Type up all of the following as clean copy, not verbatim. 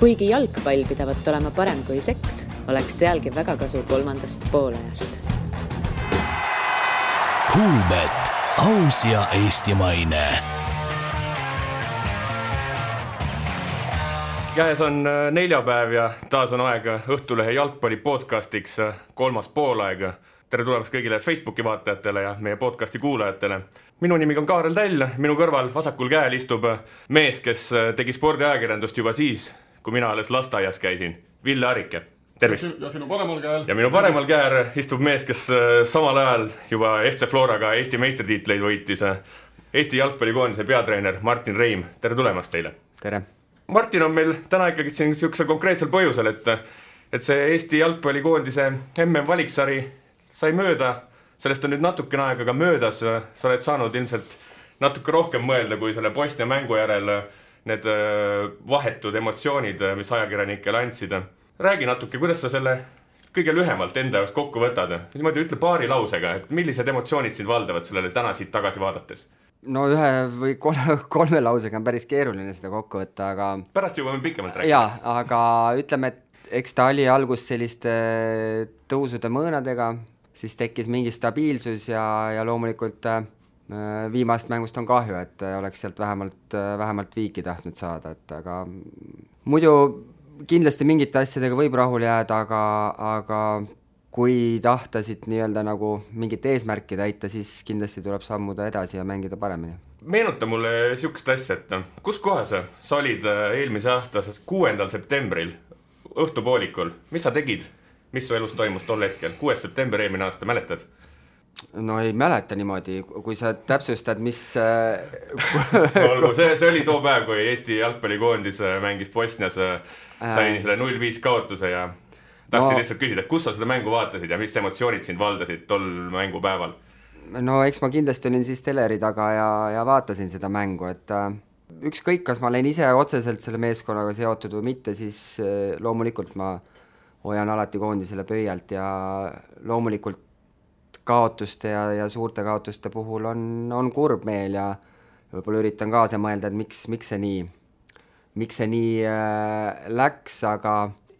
Kuigi jalgpall pidavat olema parem kui seks, oleks sealgi väga kasu kolmandast poolajast. Kuulbet, aus ja eestimaine. Käes on neljapäev ja taas on aeg Õhtulehe jalgpalli podcastiks kolmas poolaeg. Tere tulemast kõigile Facebooki vaatajatele ja meie podcasti kuulajatele. Minu nimi on Kaarel Täll, minu kõrval vasakul käel istub mees, kes tegi spordiajakirjandust juba siis, kui mina alles lasteaias käisin. Ville Arike, tervist! Ja sinu paremal käel. Ja minu paremal käel istub mees, kes samal ajal juba FC Floraga Eesti meistritiitleid võitis. Eesti jalgpallikoondise peatreener Martin Reim, tere tulemast teile! Tere! Martin on meil täna ikkagi siin sellisel konkreetsel põhjusel, et see Eesti jalgpallikoondise MM-valiksari sai mööda. Sellest on nüüd natukene aega ka möödas. Sa oled saanud ilmselt natuke rohkem mõelda kui selle Bosnia mängu järel need vahetud emotsioonid, mis ajakirjanikele andsid. Räägi natuke, kuidas sa selle kõige lühemalt enda jaoks kokku võtad. Niimoodi ütle paari lausega, et millised emotsioonid sind valdavad sellele täna siit tagasi vaadates? No ühe või kolme lausega on päris keeruline seda kokku võtta, aga... Pärast jõuame pikemalt rääkida. Jaa, aga ütleme, et eks ta oli algus selliste tõusude mõõnadega, siis tekkis mingi stabiilsus ja loomulikult viimast mängust on kahju, et oleks sealt vähemalt viiki tahtnud saada, et aga muidu kindlasti mingite asjadega võib rahul jääda, aga kui tahtasid nii-öelda nagu mingit eesmärki täita, siis kindlasti tuleb sammuda edasi ja mängida paremini. Meenuta mulle sihukest asja, et kus kohas sa olid eelmise aasta 6. septembril õhtupoolikul? Mis sa tegid? Mis su elus toimus tol hetkel? 6. september eelmine aasta, mäletad? No ei mäleta niimoodi, kui sa täpsustad, mis... Olgu, see oli too päev, kui Eesti jalgpallikoondis mängis Bosnias, sai selle 0-5 kaotuse ja tahtsin lihtsalt küsida, kus sa seda mängu vaatasid ja mis emotsioonid sind valdasid tol mängupäeval? No eks ma kindlasti olin siis teleri taga ja vaatasin seda mängu, et ükskõik, kas ma olen ise otseselt selle meeskonnaga seotud või mitte, siis loomulikult ma hoian alati koondisele pöialt ja loomulikult kaotuste ja suurte kaotuste puhul on kurb meel ja võib-olla üritan kaasa mõelda, et miks see nii läks, aga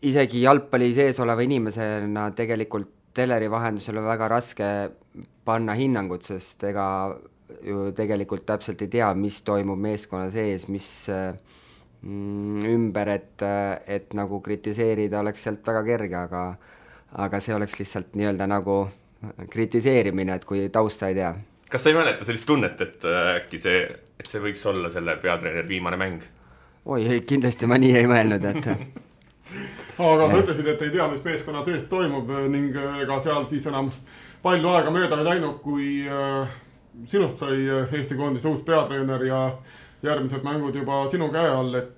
isegi jalgpalli sees oleva inimesena tegelikult teleri vahendusel on väga raske panna hinnangut, sest ega ju tegelikult täpselt ei tea, mis toimub meeskonna sees, mis ümber, et nagu kritiseerida oleks sealt väga kerge, aga see oleks lihtsalt nii-öelda nagu kritiseerimine, et kui tausta ei tea. Kas sa ei mäleta sellist tunnet, et äkki see võiks olla selle peatreener viimane mäng? Oi, kindlasti ma nii ei mõelnud, et... Aga sa ütlesid, et ei tea, mis meeskonna sees toimub ning ega seal siis enam palju aega mööda ei läinud, kui sinust sai Eesti koondise uus peatreener ja järgmised mängud juba sinu käe all, et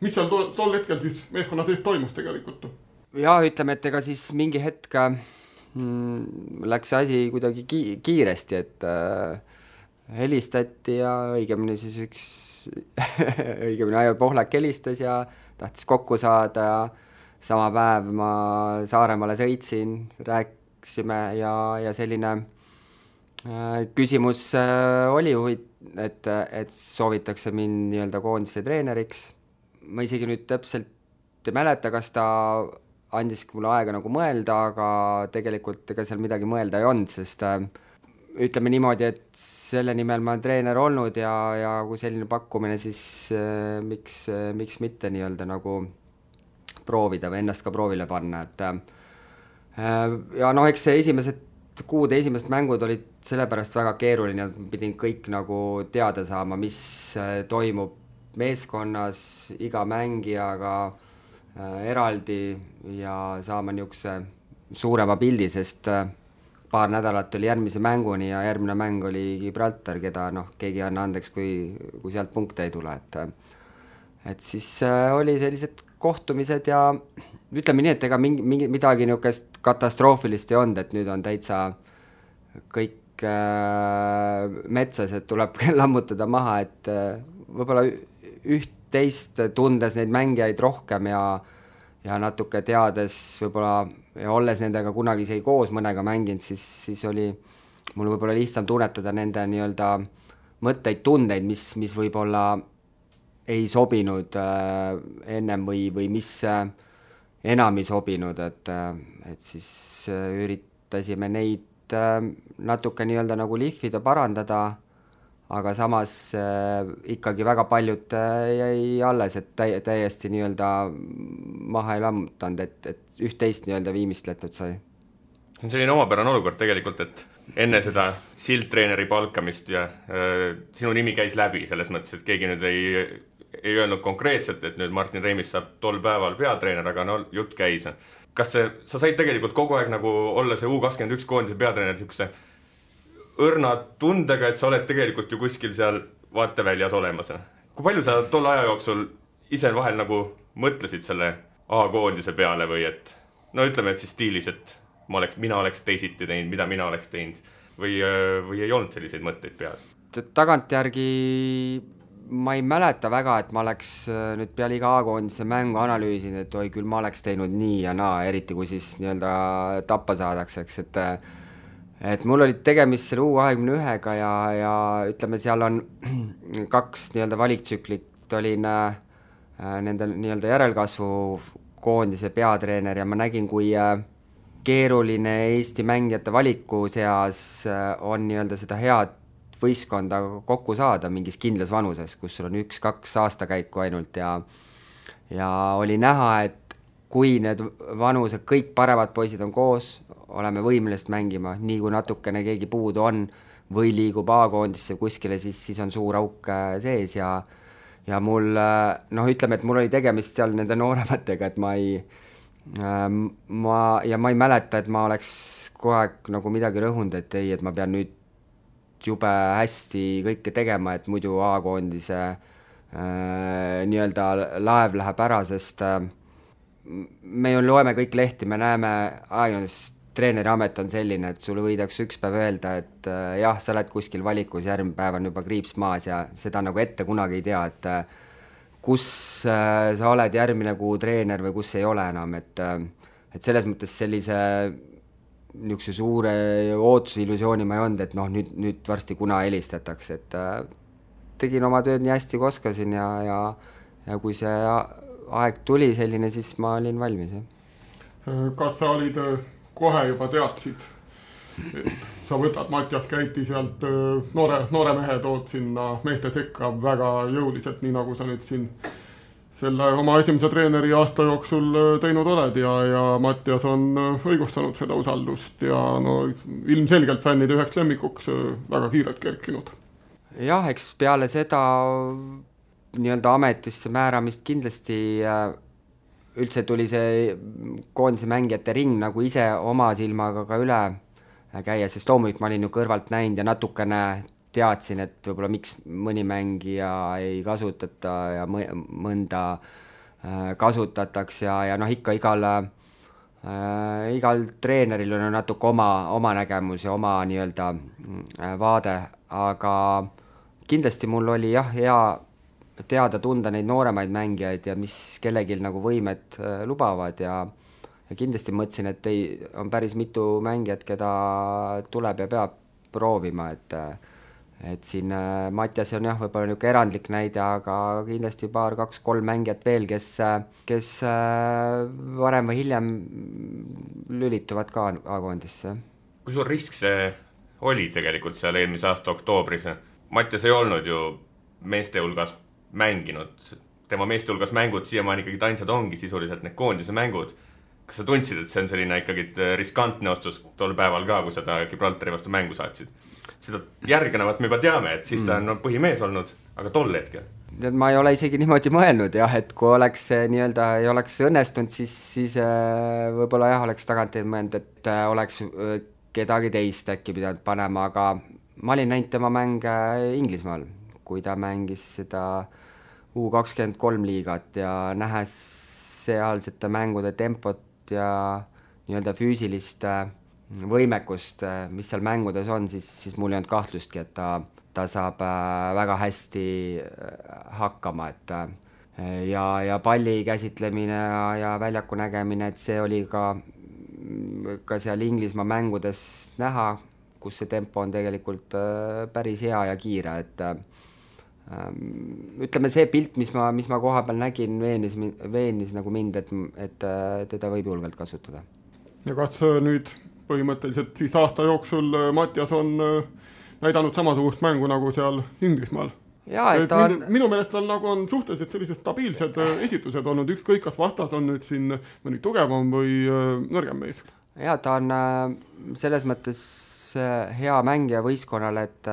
mis seal tol hetkel siis meeskonna sees toimus tegelikult? Ja ütleme, et ega siis mingi hetk läks asi kuidagi kiiresti, et helistati ja õigemini siis õigemini Aivar Pohlak helistas ja tahtis kokku saada ja sama päev ma Saaremaale sõitsin, rääksime ja selline küsimus oli, et soovitakse mind nii-öelda koondise treeneriks. Ma isegi nüüd täpselt ei mäleta, kas ta andis mulle aega nagu mõelda, aga tegelikult ega seal midagi mõelda ei olnud, sest ütleme niimoodi, et selle nimel ma olen treener olnud ja kui selline pakkumine, siis miks mitte nii-öelda nagu proovida või ennast ka proovile panna, et ja eks see esimesed mängud olid sellepärast väga keeruline, et pidin kõik nagu teada saama, mis toimub meeskonnas, iga mängijaga eraldi ja saama niisuguse suurema pildi, sest paar nädalat oli järgmise mänguni ja järgmine mäng oli Gibraltar, keda keegi anna andeks, kui sealt punkte ei tule, et siis oli sellised kohtumised ja ütleme nii, et ega midagi niisugust katastroofilist ei olnud, et nüüd on täitsa kõik metsas, et tuleb lammutada maha, et võib-olla üht-teist tundes neid mängijaid rohkem ja natuke teades võib-olla ja olles nendega kunagi isegi koos mõnega mänginud, siis oli mul võib-olla lihtsam tunnetada nende nii-öelda mõtteid, tundeid, mis võib-olla ei sobinud ennem või mis enam ei sobinud, et siis üritasime neid natuke nii-öelda nagu lihvida, parandada, aga samas ikkagi väga paljud jäi alles, et täiesti nii-öelda maha ei lammutanud, et üht-teist nii-öelda viimistletud sai. See on selline omapärane olukord tegelikult, et enne seda sildtreeneri palkamist ja sinu nimi käis läbi selles mõttes, et keegi nüüd ei öelnud konkreetselt, et nüüd Martin Reimist saab tol päeval peatreener, aga no jutt käis. Kas sa said tegelikult kogu aeg nagu olla see U21 koondise peatreener niisuguse õrna tundega, et sa oled tegelikult ju kuskil seal vaateväljas olemas? Kui palju sa tol aja jooksul ise vahel nagu mõtlesid selle A-koondise peale või et no ütleme, et siis stiilis, et mina oleks teisiti teinud, mida mina oleks teinud või ei olnud selliseid mõtteid peas? Tagantjärgi ma ei mäleta väga, et ma oleks nüüd peale iga A-koondise mängu analüüsinud, et oi küll ma oleks teinud nii ja naa, eriti kui siis nii-öelda tappa saadaks, eks, et mul oli tegemist selle U21-ga ja ütleme, seal on 2 nii-öelda valiktsüklit, olin nende nii-öelda järelkasvu koondise peatreener ja ma nägin, kui keeruline Eesti mängijate valiku seas on nii-öelda seda head võistkonda kokku saada mingis kindlas vanuses, kus sul on 1-2 aastakäiku ainult ja oli näha, et kui need vanused, kõik paremad poisid on koos, oleme võimelised mängima, nii kui natukene keegi puudu on või liigub A-koondisse kuskile, siis on suur auk sees ja mul, ütleme, et mul oli tegemist seal nende noorematega, et ma ei mäleta, et ma oleks kogu aeg nagu midagi rõhunud, et ei, et ma pean nüüd jube hästi kõike tegema, et muidu A-koondise nii-öelda laev läheb ära, sest me ju loeme kõik lehti, me näeme ajakirjanduses, treeneri amet on selline, et sulle võidakse üks päev öelda, et jah, sa oled kuskil valikus, järgmine päev on juba kriips maas ja seda nagu ette kunagi ei tea, et kus sa oled järgmine kuu treener või kus ei ole enam, et selles mõttes sellise niisuguse suure ootuse illusiooni ma ei olnud, et nüüd varsti kuna helistatakse, et tegin oma tööd nii hästi kui oskasin ja kui see aeg tuli selline, siis ma olin valmis. Kas sa olid kohe juba teadsid, et sa võtad Mattias Käiti sealt noore mehe tood sinna meeste sekka väga jõuliselt, nii nagu sa nüüd siin selle oma esimese treeneri aasta jooksul teinud oled ja Mattias on õigustanud seda usaldust ja ilmselgelt fännide üheks lemmikuks väga kiirelt kerkinud. Jah, eks peale seda nii-öelda ametisse määramist kindlasti üldse tuli see koondise mängijate ring nagu ise oma silmaga ka üle käia, sest loomulikult ma olin ju kõrvalt näinud ja natukene teadsin, et võib-olla miks mõni mängija ei kasutata ja mõnda kasutatakse ja ikka igal treeneril on natuke oma nägemus ja oma nii-öelda vaade, aga kindlasti mul oli hea teada tunda neid nooremaid mängijaid ja mis kellelgi nagu võimed lubavad ja kindlasti mõtlesin, et on päris mitu mängijat, keda tuleb ja peab proovima, et siin Mattias on võib-olla niisugune erandlik näide, aga kindlasti 2-3 mängijat veel, kes varem või hiljem lülituvad ka A-koondisse. Kui suur risk see oli tegelikult seal eelmise aasta oktoobris? Mattias ei olnud ju meeste hulgas mänginud, tema meeste hulgas mängud siiamaani ikkagi ainsad ongi sisuliselt need koondise mängud. Kas sa tundsid, et see on selline ikkagi riskantne ostus tol päeval ka, kui seda Gibraltari vastu mängu saatsid? Seda järgnevat me juba teame, et siis ta on põhimees olnud, aga tol hetkel? Ma ei ole isegi niimoodi mõelnud, et kui oleks nii-öelda ei oleks õnnestunud, siis võib-olla oleks tagant mõelnud, et oleks kedagi teist äkki pidanud panema, aga ma olin näinud tema mänge Inglismaal, kui ta mängis seda U23 liigat ja nähes sealsete mängude tempot ja nii-öelda füüsilist võimekust, mis seal mängudes on, siis mul ei olnud kahtlustki, et ta saab väga hästi hakkama, et ja palli käsitlemine ja väljaku nägemine, et see oli ka seal Inglismaa mängudes näha, kus see tempo on tegelikult päris hea ja kiire, et ütleme, see pilt, mis ma koha peal nägin, veenis nagu mind, et teda võib julgelt kasutada. Ja kas nüüd põhimõtteliselt siis aasta jooksul Mattias on näidanud samasugust mängu nagu seal Inglismaal? Jaa, et minu meelest tal nagu on suhteliselt sellised stabiilsed esitused olnud, ükskõik kas vastas on nüüd siin mõni tugevam või nõrgem mees. Jaa, ta on selles mõttes hea mängija võistkonnale, et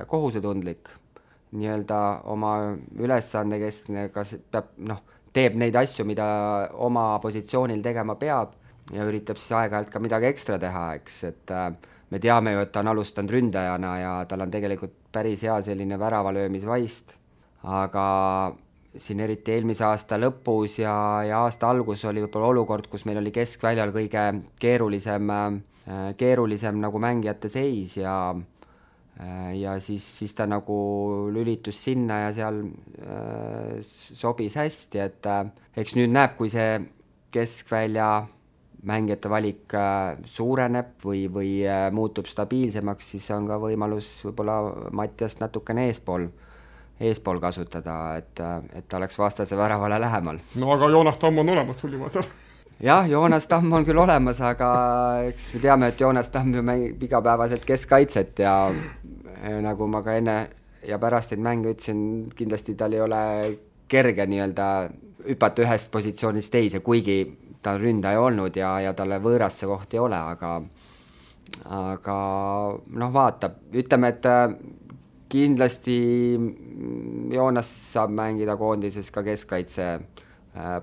kohusetundlik, nii-öelda oma ülesande, kes peab, teeb neid asju, mida oma positsioonil tegema peab ja üritab siis aeg-ajalt ka midagi ekstra teha, eks, et me teame ju, et ta on alustanud ründajana ja tal on tegelikult päris hea selline väravalöömisvaist, aga siin eriti eelmise aasta lõpus ja aasta algus oli võib-olla olukord, kus meil oli keskväljal kõige keerulisem nagu mängijate seis ja siis ta nagu lülitus sinna ja seal sobis hästi, et eks nüüd näeb, kui see keskvälja mängijate valik suureneb või muutub stabiilsemaks, siis on ka võimalus võib-olla Mattiast natukene eespool kasutada, et ta oleks vastase väravale lähemal. No aga Joonas Tamm on olemas sul juba seal. Jah, Joonas Tamm on küll olemas, aga eks me teame, et Joonas Tamm ju mängib igapäevaselt keskkaitset ja nagu ma ka enne ja pärast neid mänge ütlesin, kindlasti tal ei ole kerge nii-öelda hüpata ühest positsioonist teise, kuigi ta on ründaja olnud ja talle võõras see koht ei ole, aga vaatab, ütleme, et kindlasti Joonas saab mängida koondises ka keskkaitse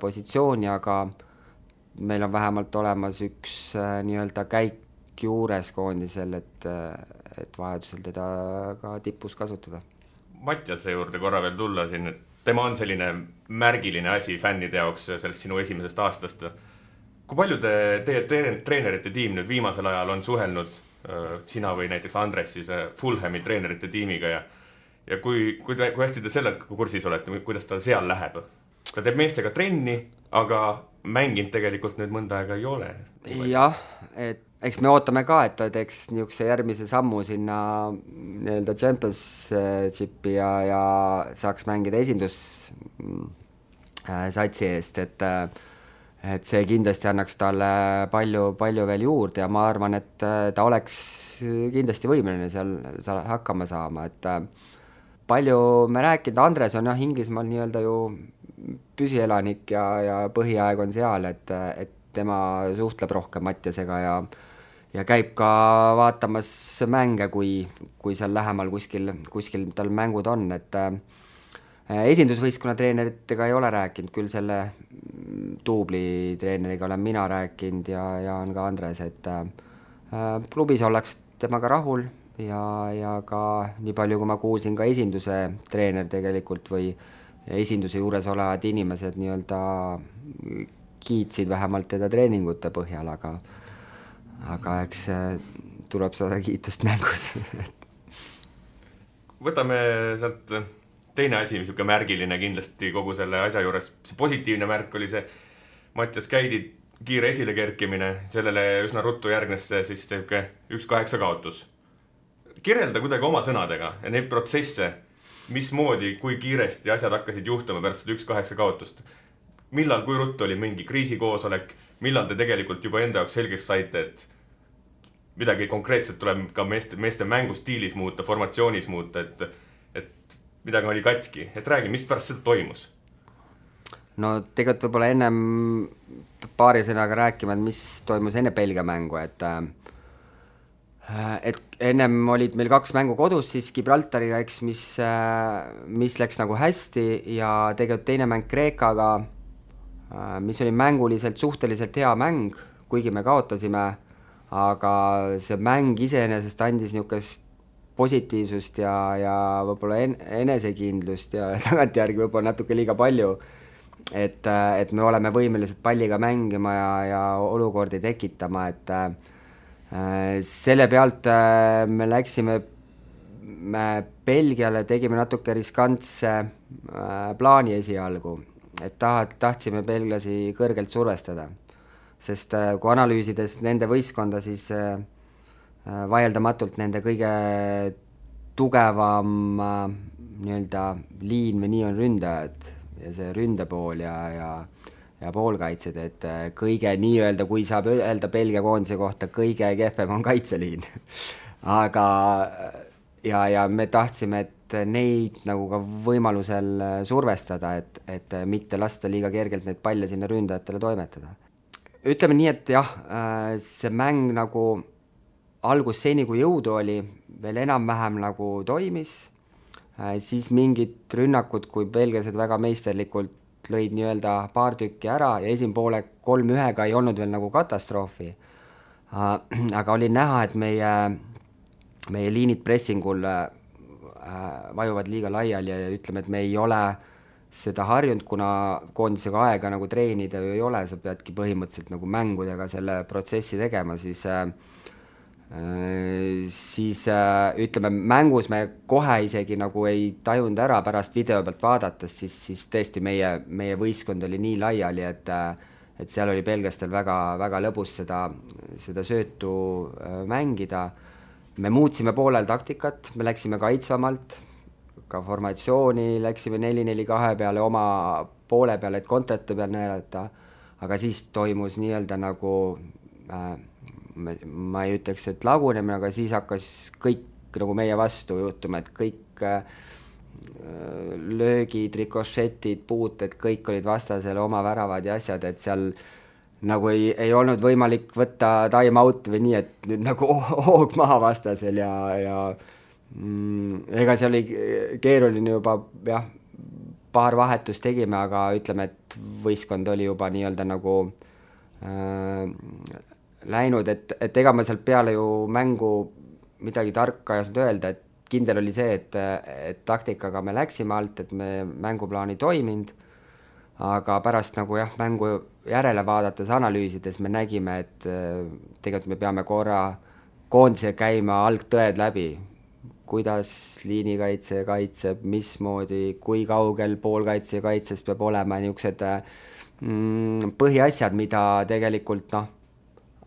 positsiooni, aga meil on vähemalt olemas üks nii-öelda käik juures koondisel, et vajadusel teda ka tipus kasutada. Mattiase juurde korra veel tulla siin, et tema on selline märgiline asi fännide jaoks sellest sinu esimesest aastast. Kui palju teie treenerite tiim nüüd viimasel ajal on suhelnud, sina või näiteks Andres siis Fulhami treenerite tiimiga ja kui hästi te sellega kursis olete, kuidas ta seal läheb? Ta teeb meestega trenni, aga mänginud tegelikult nüüd mõnda aega ei ole. Jah, et eks me ootame ka, et ta teeks niisuguse järgmise sammu sinna nii-öelda Championshipi ja saaks mängida esindussatsi eest, et see kindlasti annaks talle palju veel juurde ja ma arvan, et ta oleks kindlasti võimeline seal hakkama saama, et palju me rääkinud, Andres on Inglismaal nii-öelda ju püsielanik ja põhiaeg on seal, et tema suhtleb rohkem Mattiasega ja käib ka vaatamas mänge, kui seal lähemal kuskil tal mängud on, et esindusvõistkonna treeneritega ei ole rääkinud, küll selle duubli treeneriga olen mina rääkinud ja on ka Andres, et klubis oleks temaga rahul ja ka nii palju, kui ma kuulsin, ka esinduse treener tegelikult või esinduse juures olevad inimesed nii-öelda kiitsid vähemalt teda treeningute põhjal, aga eks tuleb saada kiitust mängus. Võtame sealt teine asi, mis märgiline kindlasti kogu selle asja juures, see positiivne märk oli see Mattias Käidi kiire esilekerkimine, sellele üsna ruttu järgnes siis 1-8 kaotus. Kirjelda kuidagi oma sõnadega ja neid protsesse, mismoodi, kui kiiresti asjad hakkasid juhtuma pärast 1-8 kaotust. Millal, kui ruttu oli mingi kriisikoosolek, millal te tegelikult juba enda jaoks selgeks saite, et midagi konkreetselt tuleb ka meeste mängustiilis muuta, formatsioonis muuta, et midagi oli katki, et räägi, mis pärast seda toimus? No tegelikult võib-olla ennem paari sõnaga rääkima, mis toimus enne Belgia mängu, et ennem olid meil 2 mängu kodus siis Gibraltariga, eks, mis läks nagu hästi ja tegelikult teine mäng Kreekaga, mis oli mänguliselt suhteliselt hea mäng, kuigi me kaotasime, aga see mäng iseenesest andis niisugust positiivsust ja võib-olla enesekindlust ja tagantjärgi võib-olla natuke liiga palju, et me oleme võimelised palliga mängima ja olukordi tekitama, et selle pealt me läksime Belgiale, tegime natuke riskantse plaani esialgu, et tahtsime belglasi kõrgelt survestada, sest kui analüüsides nende võistkonda, siis vaieldamatult nende kõige tugevam nii-öelda liin või nii on ründajad ja see ründepool ja poolkaitsed, et kõige nii-öelda, kui saab öelda Belgia koondise kohta, kõige kehvem on kaitseliin. Aga ja me tahtsime, et neid nagu ka võimalusel survestada, et mitte lasta liiga kergelt neid palle sinna ründajatele toimetada. Ütleme nii, et jah, see mäng nagu algus seni, kui jõudu oli, veel enam-vähem nagu toimis, siis mingid rünnakud, kui belglased väga meisterlikult lõid nii-öelda paar tükki ära ja esimpoole 3-1-ga ei olnud veel nagu katastroofi. Aga oli näha, et meie liinid pressingul vajuvad liiga laiali ja ütleme, et me ei ole seda harjunud, kuna koondisega aega nagu treenida ju ei ole, sa peadki põhimõtteliselt nagu mängudega selle protsessi tegema, siis ütleme, mängus me kohe isegi nagu ei tajunud ära pärast video pealt vaadates, siis tõesti meie võistkond oli nii laiali, et seal oli belgastel väga, väga lõbus seda söötu mängida. Me muutsime poolel taktikat, me läksime kaitsvamalt, ka formatsiooni läksime 4-4-2 peale oma poole peale, et kontrate peal näelata, aga siis toimus nii-öelda nagu ma ei ütleks, et lagunemine, aga siis hakkas kõik nagu meie vastu juhtuma, et kõik löögid, rikošetid, puuted, kõik olid vastasele oma väravad ja asjad, et seal nagu ei olnud võimalik võtta time out või nii, et nüüd nagu hoog maha vastasel ja ega see oli keeruline juba, jah, paar vahetust tegime, aga ütleme, et võistkond oli juba nii-öelda nagu läinud, et ega ma sealt peale ju mängu midagi tarka ei saanud öelda, et kindel oli see, et taktikaga me läksime alt, et me mänguplaan ei toiminud, aga pärast nagu jah, mängu järele vaadates, analüüsides me nägime, et tegelikult me peame korra koondise käima algtõed läbi, kuidas liinikaitse kaitseb, mismoodi, kui kaugel poolkaitse ja kaitses peab olema, niisugused põhiasjad, mida tegelikult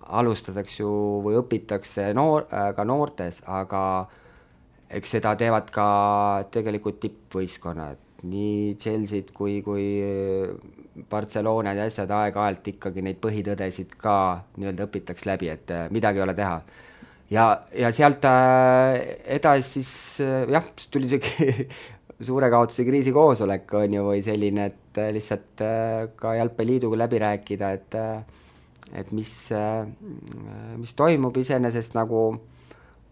alustatakse ju või õpitakse ka noortes, aga eks seda teevad ka tegelikult tippvõistkonnad, nii Chelsea'd kui Barcelonad ja asjad aeg-ajalt ikkagi neid põhitõdesid ka nii-öelda õpitaks läbi, et midagi ei ole teha. Ja sealt edasi siis jah, tuli see suure kaotuse kriisikoosolek on ju või selline, et lihtsalt ka Jalgpalliliiduga läbi rääkida, et mis toimub iseenesest nagu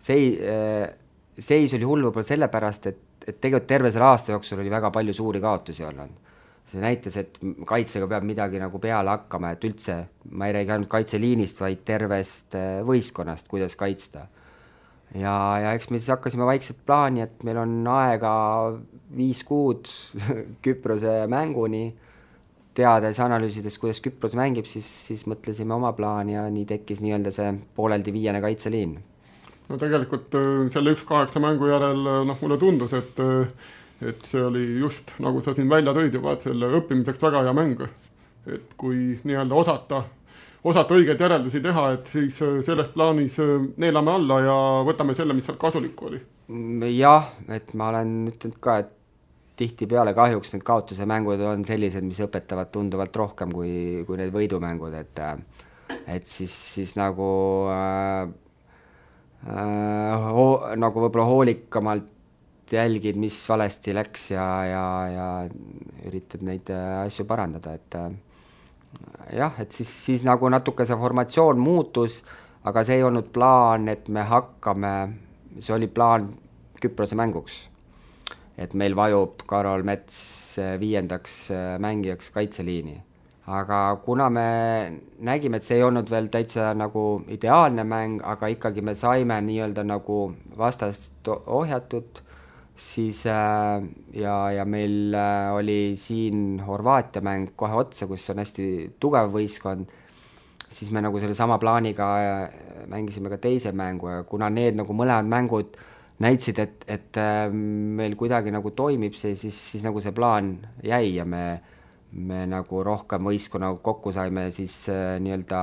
seis oli hull võib-olla sellepärast, et tegelikult terve selle aasta jooksul oli väga palju suuri kaotusi olnud. See näitas, et kaitsega peab midagi nagu peale hakkama, et üldse ma ei räägi ainult kaitseliinist, vaid tervest võistkonnast, kuidas kaitsta. Ja eks me siis hakkasime vaikselt plaani, et meil on aega 5 kuud Küprose mänguni, teades, analüüsides, kuidas Küpros mängib, siis mõtlesime oma plaani ja nii tekkis nii-öelda see pooleldi 5. kaitseliin. No tegelikult selle 1-8 mängu järel mulle tundus, et see oli just, nagu sa siin välja tõid juba, et selle õppimiseks väga hea mäng. Et kui nii-öelda osata õigeid järeldusi teha, et siis selles plaanis neelame alla ja võtame selle, mis seal kasulik oli. Jah, et ma olen ütelnud ka, et tihti peale kahjuks need kaotuse mängud on sellised, mis õpetavad tunduvalt rohkem kui need võidumängud, et siis nagu nagu võib-olla hoolikamalt jälgid, mis valesti läks ja üritad neid asju parandada, et jah, et siis nagu natuke see formatsioon muutus, aga see ei olnud plaan, et me hakkame, see oli plaan Küprose mänguks, et meil vajub Karol Mets 5. mängijaks kaitseliini. Aga kuna me nägime, et see ei olnud veel täitsa nagu ideaalne mäng, aga ikkagi me saime nii-öelda nagu vastast ohjatud, siis ja meil oli siin Horvaatia mäng kohe otsa, kus on hästi tugev võistkond, siis me nagu selle sama plaaniga mängisime ka teise mängu ja kuna need nagu mõlemad mängud näitsid, et meil kuidagi nagu toimib see, siis nagu see plaan jäi ja me nagu rohkem võistkonna kokku saime, siis nii-öelda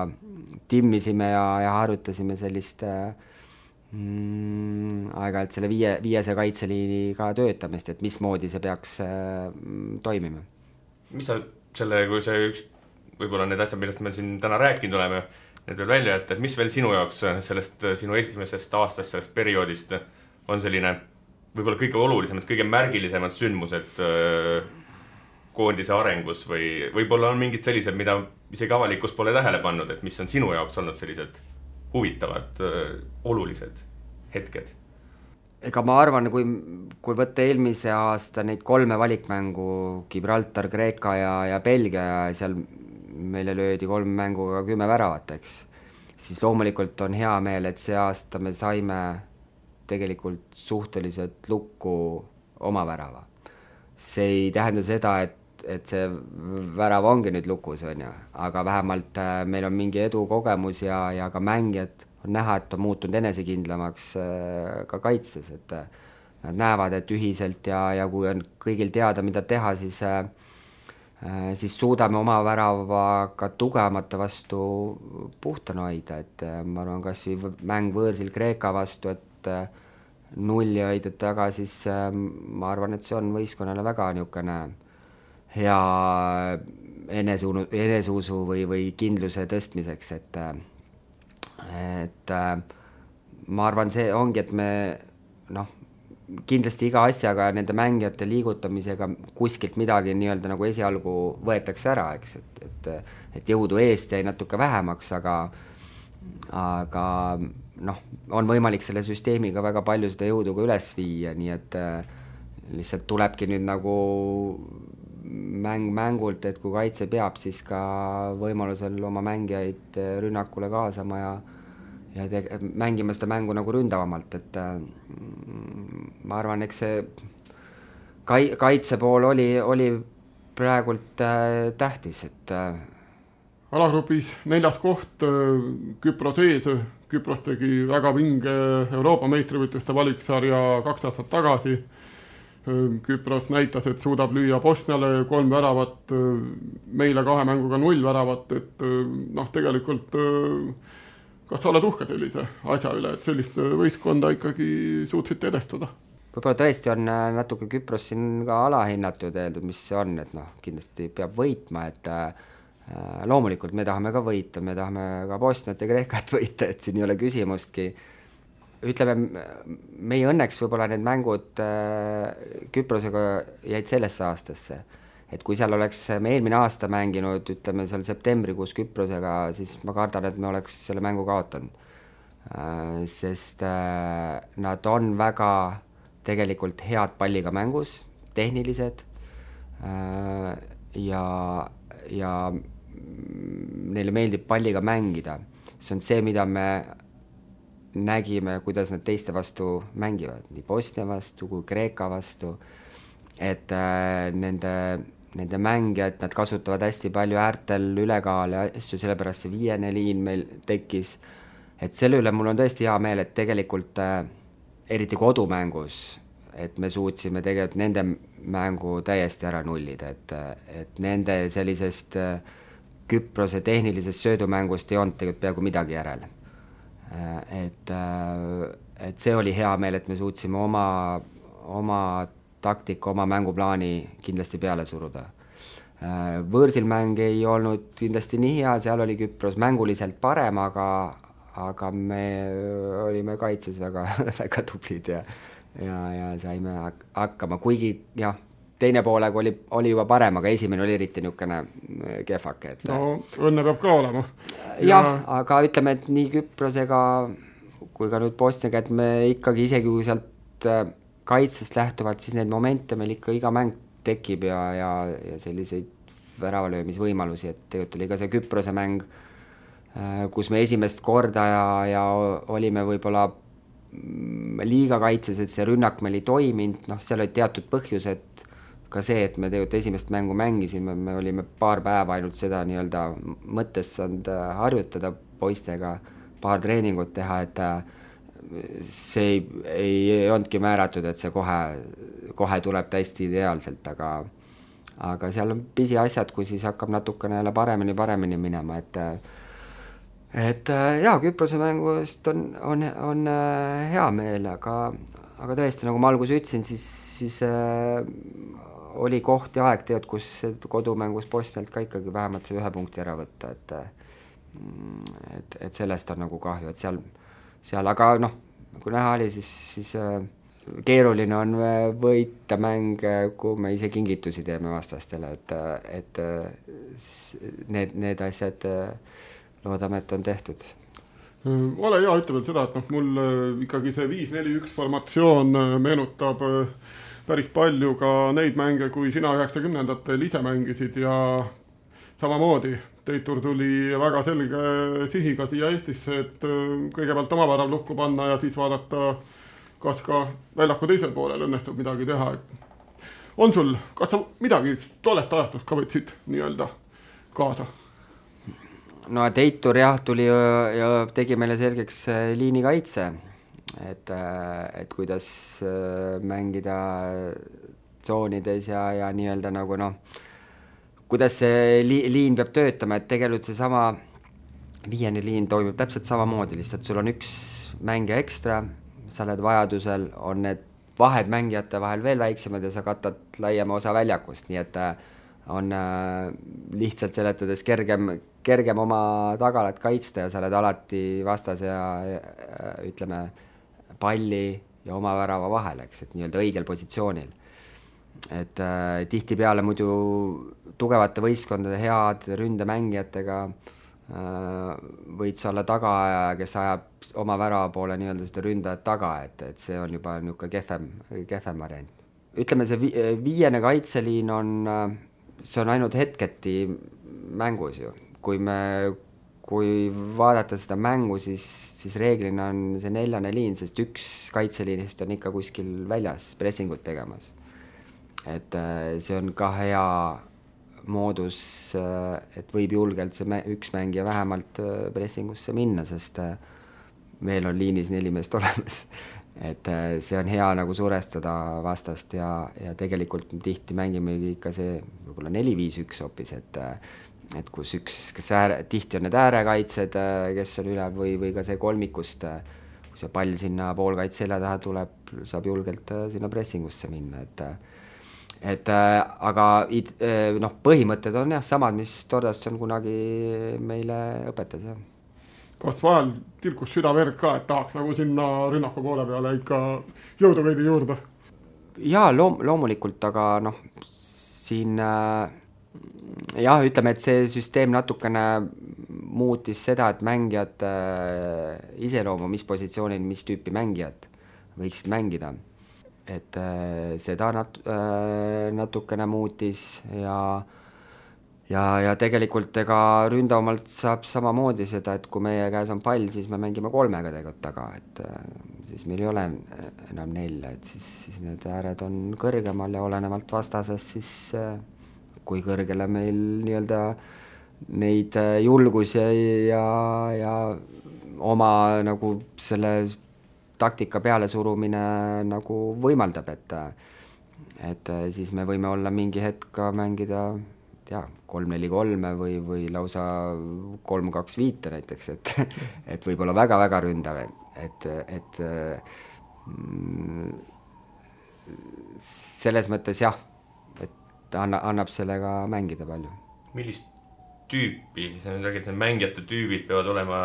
timmisime ja harjutasime sellist Aeg-ajalt selle viiese kaitseliiniga töötamist, et mismoodi see peaks toimima. Mis sa selle, kui see üks, võib-olla need asjad, millest me siin täna rääkinud oleme, need veel välja jätta, et mis veel sinu jaoks sellest sinu esimesest aastast, sellest perioodist on selline võib-olla kõige olulisemad, kõige märgilisemad sündmused koondise arengus või võib-olla on mingid sellised, mida isegi avalikkus pole tähele pannud, et mis on sinu jaoks olnud sellised huvitavad, olulised hetked? Ega ma arvan, kui võtta eelmise aasta neid 3 valikmängu, Gibraltar, Kreeka ja Belgia, ja seal meile löödi 3 mänguga 10 väravat, eks, siis loomulikult on hea meel, et see aasta me saime tegelikult suhteliselt lukku oma värava. See ei tähenda seda, et see värav ongi nüüd lukus, on ju, aga vähemalt meil on mingi edukogemus ja ka mängijad on näha, et on muutunud enesekindlamaks ka kaitses, et nad näevad, et ühiselt ja kui on kõigil teada, mida teha, siis suudame oma väravaga tugevamate vastu puhtana hoida, et ma arvan, kas mäng võõrsil Kreeka vastu, et 0 hoida taga, siis ma arvan, et see on võistkonnale väga niisugune hea eneseusu või kindluse tõstmiseks, et ma arvan, see ongi, et me kindlasti iga asjaga nende mängijate liigutamisega kuskilt midagi nii-öelda nagu esialgu võetakse ära, eks, et jõudu eest jäi natuke vähemaks, aga on võimalik selle süsteemiga väga palju seda jõudu ka üles viia, nii et lihtsalt tulebki nüüd nagu mängult, et kui kaitse peab, siis ka võimalusel oma mängijaid rünnakule kaasama ja mängima seda mängu nagu ründavamalt, et ma arvan, eks see kaitse pool oli praegult tähtis, et alagrupis 4. koht Küpros ees. Küpros tegi väga vinge Euroopa meistrivõitluste valiksarja 2 aastat tagasi. Küpros näitas, et suudab lüüa Bosniale 3 väravat, meile 2 mänguga 0 väravat, et tegelikult kas sa oled uhke sellise asja üle, et sellist võistkonda ikkagi suutsite edestada? Võib-olla tõesti on natuke Küpros siin ka alahinnatud öeldud, mis see on, et kindlasti peab võitma, et loomulikult me tahame ka võita, me tahame ka Bosniat ja Kreekat võita, et siin ei ole küsimustki. Ütleme, meie õnneks võib-olla need mängud Küprosega jäid sellesse aastasse, et kui seal oleks me eelmine aasta mänginud, ütleme seal septembrikuus Küprosega, siis ma kardan, et me oleks selle mängu kaotanud, sest nad on väga tegelikult head palliga mängus, tehnilised ja neile meeldib palliga mängida. See on see, mida me nägime, kuidas nad teiste vastu mängivad, nii Bosnia vastu kui Kreeka vastu, et nende mängijad, nad kasutavad hästi palju äärtel ülekaale asju, sellepärast see 5. liin meil tekkis, et selle üle mul on tõesti hea meel, et tegelikult eriti kodumängus, et me suutsime tegelikult nende mängu täiesti ära nullida, et nende sellisest Küprose tehnilisest söödumängust ei olnud tegelikult peaaegu midagi järele. Et see oli hea meel, et me suutsime oma taktika, oma mänguplaani kindlasti peale suruda. Võõrsil mäng ei olnud kindlasti nii hea, seal oli Küpros mänguliselt parem, aga me olime kaitses väga, väga tublid ja saime hakkama, kuigi jah, teine poolega oli juba parem, aga esimene oli eriti niisugune kehvake. No õnne peab ka olema. Jah, aga ütleme, et nii Küprosega kui ka nüüd Bosniaga, et me ikkagi isegi kui sealt kaitsest lähtuvalt, siis need momente meil ikka iga mäng tekib ja selliseid väravalöömisvõimalusi, et tegelikult oli ka see Küprose mäng, kus me esimest korda ja olime võib-olla liiga kaitses, et see rünnak meil ei toiminud, seal olid teatud põhjused, ka see, et me tegelikult esimest mängu mängisime, me olime paar päeva ainult seda nii-öelda mõttes saanud harjutada poistega, paar treeningut teha, et see ei olnudki määratud, et see kohe tuleb täiesti ideaalselt, aga seal on pisiasjad, kui siis hakkab natukene jälle paremini minema, et et jaa, Küprose mängust on hea meel, aga tõesti, nagu ma alguses ütlesin, siis oli koht ja aeg teod, kus kodumängus Bosnialt ka ikkagi vähemalt see 1 punkti ära võtta, et sellest on nagu kahju, et seal aga noh, kui näha oli, siis keeruline on võita mänge, kui me ise kingitusi teeme vastastele, et need asjad loodame, et on tehtud. Ole hea, ütle veel seda, et mul ikkagi see 5-4-1 formatsioon meenutab päris palju ka neid mänge, kui sina 90-ndatel ise mängisid ja samamoodi Teitur tuli väga selge sihiga siia Eestisse, et kõigepealt oma värav lukku panna ja siis vaadata, kas ka väljaku teisel poolel õnnestub midagi teha. On sul, kas sa midagi tollest ajastust ka võtsid nii-öelda kaasa? No Teitur jah, tuli ja tegi meile selgeks liinikaitse, et kuidas mängida tsoonides ja nii-öelda nagu kuidas see liin peab töötama, et tegelikult see sama viiene liin toimib täpselt samamoodi, lihtsalt sul on üks mängija ekstra, sa oled vajadusel, on need vahed mängijate vahel veel väiksemad ja sa katad laiema osa väljakust, nii et on lihtsalt seletades kergem oma tagalat kaitsta ja sa oled alati vastase ja ütleme palli ja oma värava vahel, eks, et nii-öelda õigel positsioonil. Et tihtipeale muidu tugevate võistkondade head ründemängijatega võid sa olla tagaaja, kes ajab oma värava poole nii-öelda seda ründajat taga, et see on juba niisugune kehvem variant. Ütleme, see viiene kaitseliin see on ainult hetketi mängus ju. Kui vaadata seda mängu, siis reeglina on see 4. liin, sest üks kaitseliinist on ikka kuskil väljas pressingut tegemas. Et see on ka hea moodus, et võib julgelt see üks mängija vähemalt pressingusse minna, sest meil on liinis 4 meest olemas. Et see on hea nagu surestada vastast ja tegelikult tihti mängime ikka see võib-olla 4-5-1 hoopis, et kus tihti on need äärekaitsed, kes on üle või ka see kolmikust, kui see pall sinna poolkaitse selja taha tuleb, saab julgelt sinna pressingusse minna, aga põhimõtted on jah samad, mis Tordasson kunagi meile õpetas. Jah. Kas vahel tilkus süda verd ka, et tahaks nagu sinna rünnaku poole peale ikka jõudu veidi juurde? Jaa, loomulikult, aga siin jah, ütleme, et see süsteem natukene muutis seda, et mängijad iseloomu, mis positsioonil, mis tüüpi mängijad võiksid mängida. Et seda natukene muutis ja tegelikult ega ründavamalt saab samamoodi seda, et kui meie käes on pall, siis me mängime 3 tegelikult taga, et siis meil ei ole enam 4, et siis need ääred on kõrgemal ja olenevalt vastasest, siis kui kõrgele meil nii-öelda neid julgus ja oma nagu selle taktika peale surumine nagu võimaldab, et siis me võime olla mingi hetk mängida 3-4-3 või lausa 3-2-5 näiteks, et võib-olla väga-väga ründav, et selles mõttes jah, et annab sellega mängida palju. Millist tüüpi, siis on räägid, et mängijate tüübid peavad olema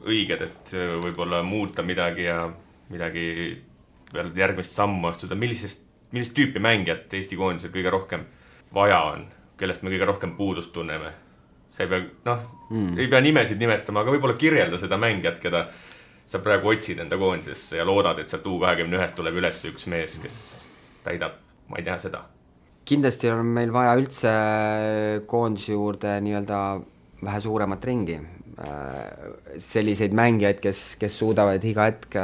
õiged, et võib-olla muuta midagi ja midagi peale järgmist sammu astuda. Millist tüüpi mängijat Eesti koondisel kõige rohkem vaja on? Kellest me kõige rohkem puudust tunneme? See ei pea nimesid nimetama, aga võib-olla kirjelda seda mängijat, keda sa praegu otsid enda koondisesse ja loodad, et sealt U21 tuleb üles üks mees, kes täidab, ma ei tea seda. Kindlasti on meil vaja üldse koondise juurde nii-öelda vähe suuremat ringi. Selliseid mängijaid, kes suudavad iga hetk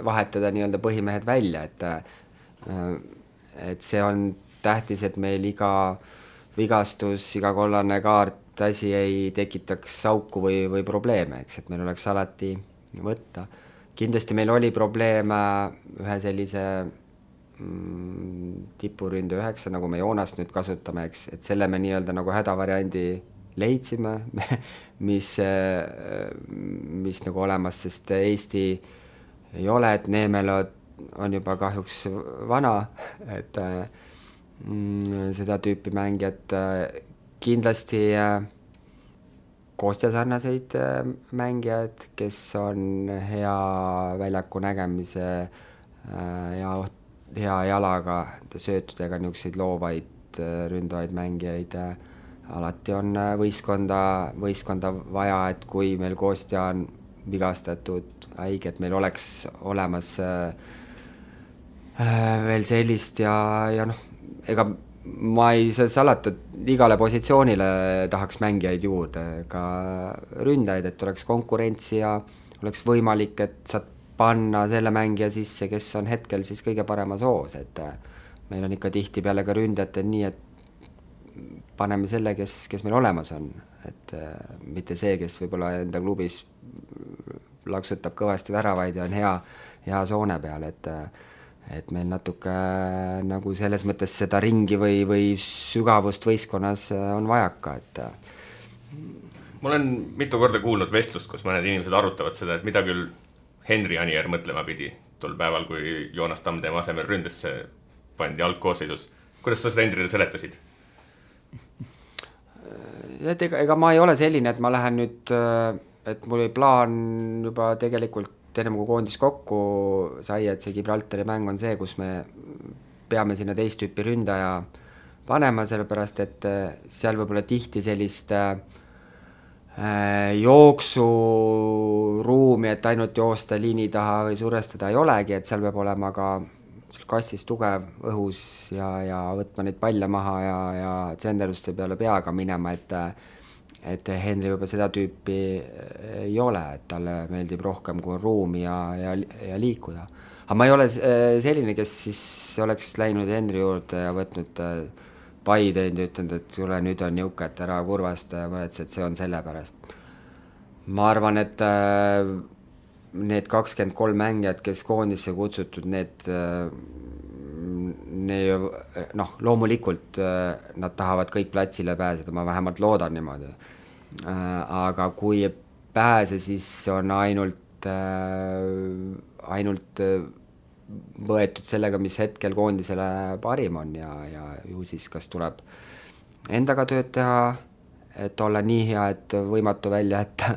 vahetada nii-öelda põhimehed välja, et see on tähtis, et meil iga vigastus, iga kollane kaart asi ei tekitaks auku või probleeme, eks, et meil oleks alati võtta. Kindlasti meil oli probleeme ühe sellise tipuründe 9, nagu me Joonast nüüd kasutame, eks, et selle me nii-öelda nagu hädavariandi leidsime, mis nagu olemas, sest Eesti ei ole, et Neemelo on juba kahjuks vana, et seda tüüpi mängijad kindlasti Kostja sarnaseid mängijad, kes on hea väljaku nägemise ja hea jalaga, söötudega niisuguseid loovaid ründavaid mängijaid. Alati on võistkonda vaja, et kui meil Kostja on vigastatud, haige, et meil oleks olemas veel sellist ja noh, ega ma ei saa salata, et igale positsioonile tahaks mängijaid juurde, ka ründajaid, et oleks konkurentsi ja oleks võimalik, et saad panna selle mängija sisse, kes on hetkel siis kõige paremas hoos, et meil on ikka tihti peale ka ründajatel nii, et paneme selle, kes meil olemas on, et mitte see, kes võib-olla enda klubis laksutab kõvasti väravaid ja on hea soone peal, et meil natuke nagu selles mõttes seda ringi või sügavust võistkonnas on vajaka, et ma olen mitu korda kuulnud vestlust, kus mõned inimesed arutavad seda, et mida küll Henri Anier mõtlema pidi tol päeval, kui Joonas Tamm tema asemel ründesse pandi algkoosseisus. Kuidas sa seda Henrile seletasid? Et ega ma ei ole selline, et ma lähen nüüd, et mul oli plaan juba tegelikult ennem kui koondis kokku sai, et see Gibraltari mäng on see, kus me peame sinna teist tüüpi ründaja panema, sellepärast et seal võib-olla tihti sellist jooksuruumi, et ainult joosta liini taha või survestada ei olegi, et seal peab olema ka kassis tugev õhus ja võtma neid palle maha ja tsenderduste peale peaga minema, et Henri juba seda tüüpi ei ole, et talle meeldib rohkem kui ruumi ja liikuda. Aga ma ei ole selline, kes siis oleks läinud Henri juurde ja võtnud pai teinud ja ütlenud, et sulle nüüd on niuke, et ära kurvast ja mõeldes, et see on selle pärast. Ma arvan, et need 23 mängijad, kes koondisse kutsutud, need loomulikult nad tahavad kõik platsile pääseda, ma vähemalt loodan niimoodi. Aga kui ei pääse, siis on ainult võetud sellega, mis hetkel koondisele parim on ja ju siis kas tuleb endaga tööd teha, et olla nii hea, et võimatu välja jätta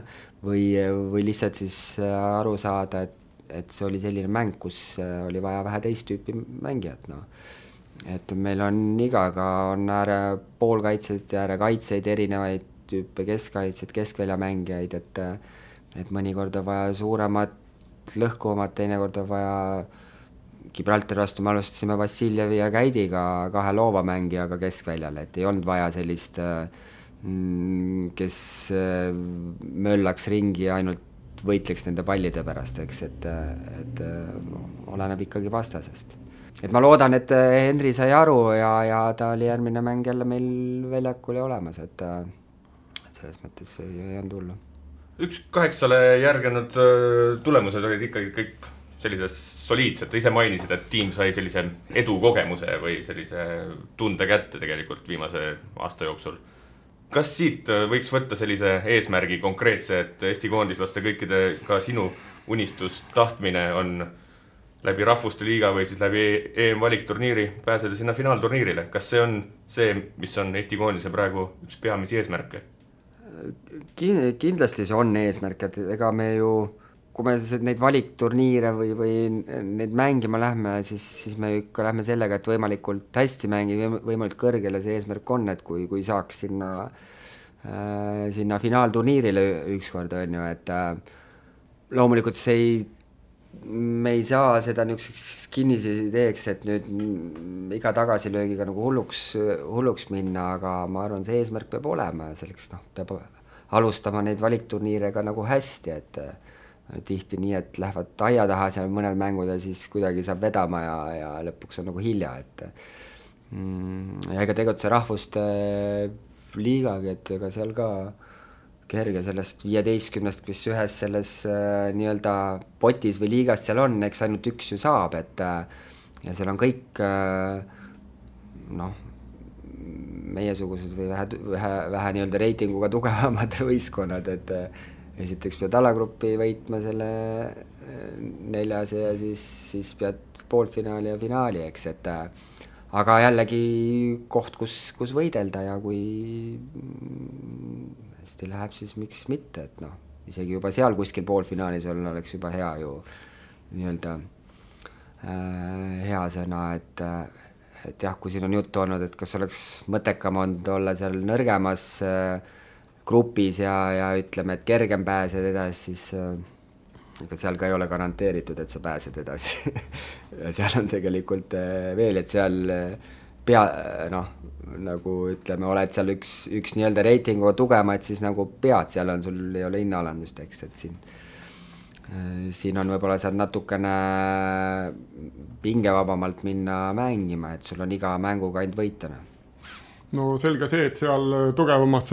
või lihtsalt siis aru saada, et see oli selline mäng, kus oli vaja vähe teist tüüpi mängijat. No. Et meil on igaga on ääre poolkaitseid ja ääre kaitseid erinevaid tüüpe, keskkaitseid, keskväljamängijaid, et mõnikord on vaja suuremat lõhkuvamat, teinekord on vaja Gibraltari vastu me alustasime Vassiljevi ja Käidiga 2 loova mängijaga keskväljal, et ei olnud vaja sellist, kes möllaks ringi ja ainult võitleks nende pallide pärast, eks, et oleneb ikkagi vastasest. Et ma loodan, et Henri sai aru ja ta oli järgmine mäng jälle meil väljakul ja olemas, et selles mõttes ei olnud hullu. 1-8 järgenud tulemused olid ikkagi kõik sellised soliidsed, ise mainisid, et tiim sai sellise edukogemuse või sellise tunde kätte tegelikult viimase aasta jooksul. Kas siit võiks võtta sellise eesmärgi konkreetse, et Eesti koondislaste kõikide ka sinu unistus, tahtmine on läbi Rahvuste Liiga või siis läbi EM-valikturniiri pääseda sinna finaalturniirile? Kas see on see, mis on Eesti koondise praegu üks peamisi eesmärke? Kindlasti see on eesmärk, et ega me ju, kui me neid valikturniire või neid mängima lähme, siis me ikka lähme sellega, et võimalikult hästi mängida, võimalikult kõrgele see eesmärk on, et kui saaks sinna finaalturniirile ükskord on ju, et loomulikult me ei saa seda niisuguseks kinnise ideeks, et nüüd iga tagasilöögiga nagu hulluks minna, aga ma arvan, see eesmärk peab olema ja selleks peab alustama neid valikturniirega nagu hästi, et tihti nii, et lähevad aia taha seal mõned mängud ja siis kuidagi saab vedama ja lõpuks on nagu hilja, et ja ega tegutse Rahvuste Liigagi, et ega seal ka kerge sellest 15, kes ühes selles nii-öelda potis või liigas seal on, eks ainult üks ju saab, et ja seal on kõik meiesugused või vähe nii-öelda reitinguga tugevamad võistkonnad, et esiteks pead alagruppi võitma selle 4 ja siis pead poolfinaali ja finaali, eks, et aga jällegi koht, kus võidelda ja kui hästi läheb, siis miks mitte, et noh, isegi juba seal kuskil poolfinaalis oleks juba hea ju nii-öelda hea sõna, et jah, kui siin on juttu olnud, et kas oleks mõttekam olnud olla seal nõrgemas grupis ja ütleme, et kergem pääsed edasi, siis ega seal ka ei ole garanteeritud, et sa pääsed edasi. Ja seal on tegelikult veel, et seal nagu ütleme, oled seal üks nii-öelda reitingu tugemaid, siis nagu pead, seal on, sul ei ole hinnaalandust, eks, et siin on võib-olla saad natukene pingevabamalt minna mängima, et sul on iga mänguga ainult võitana. No selge see, et seal tugevamas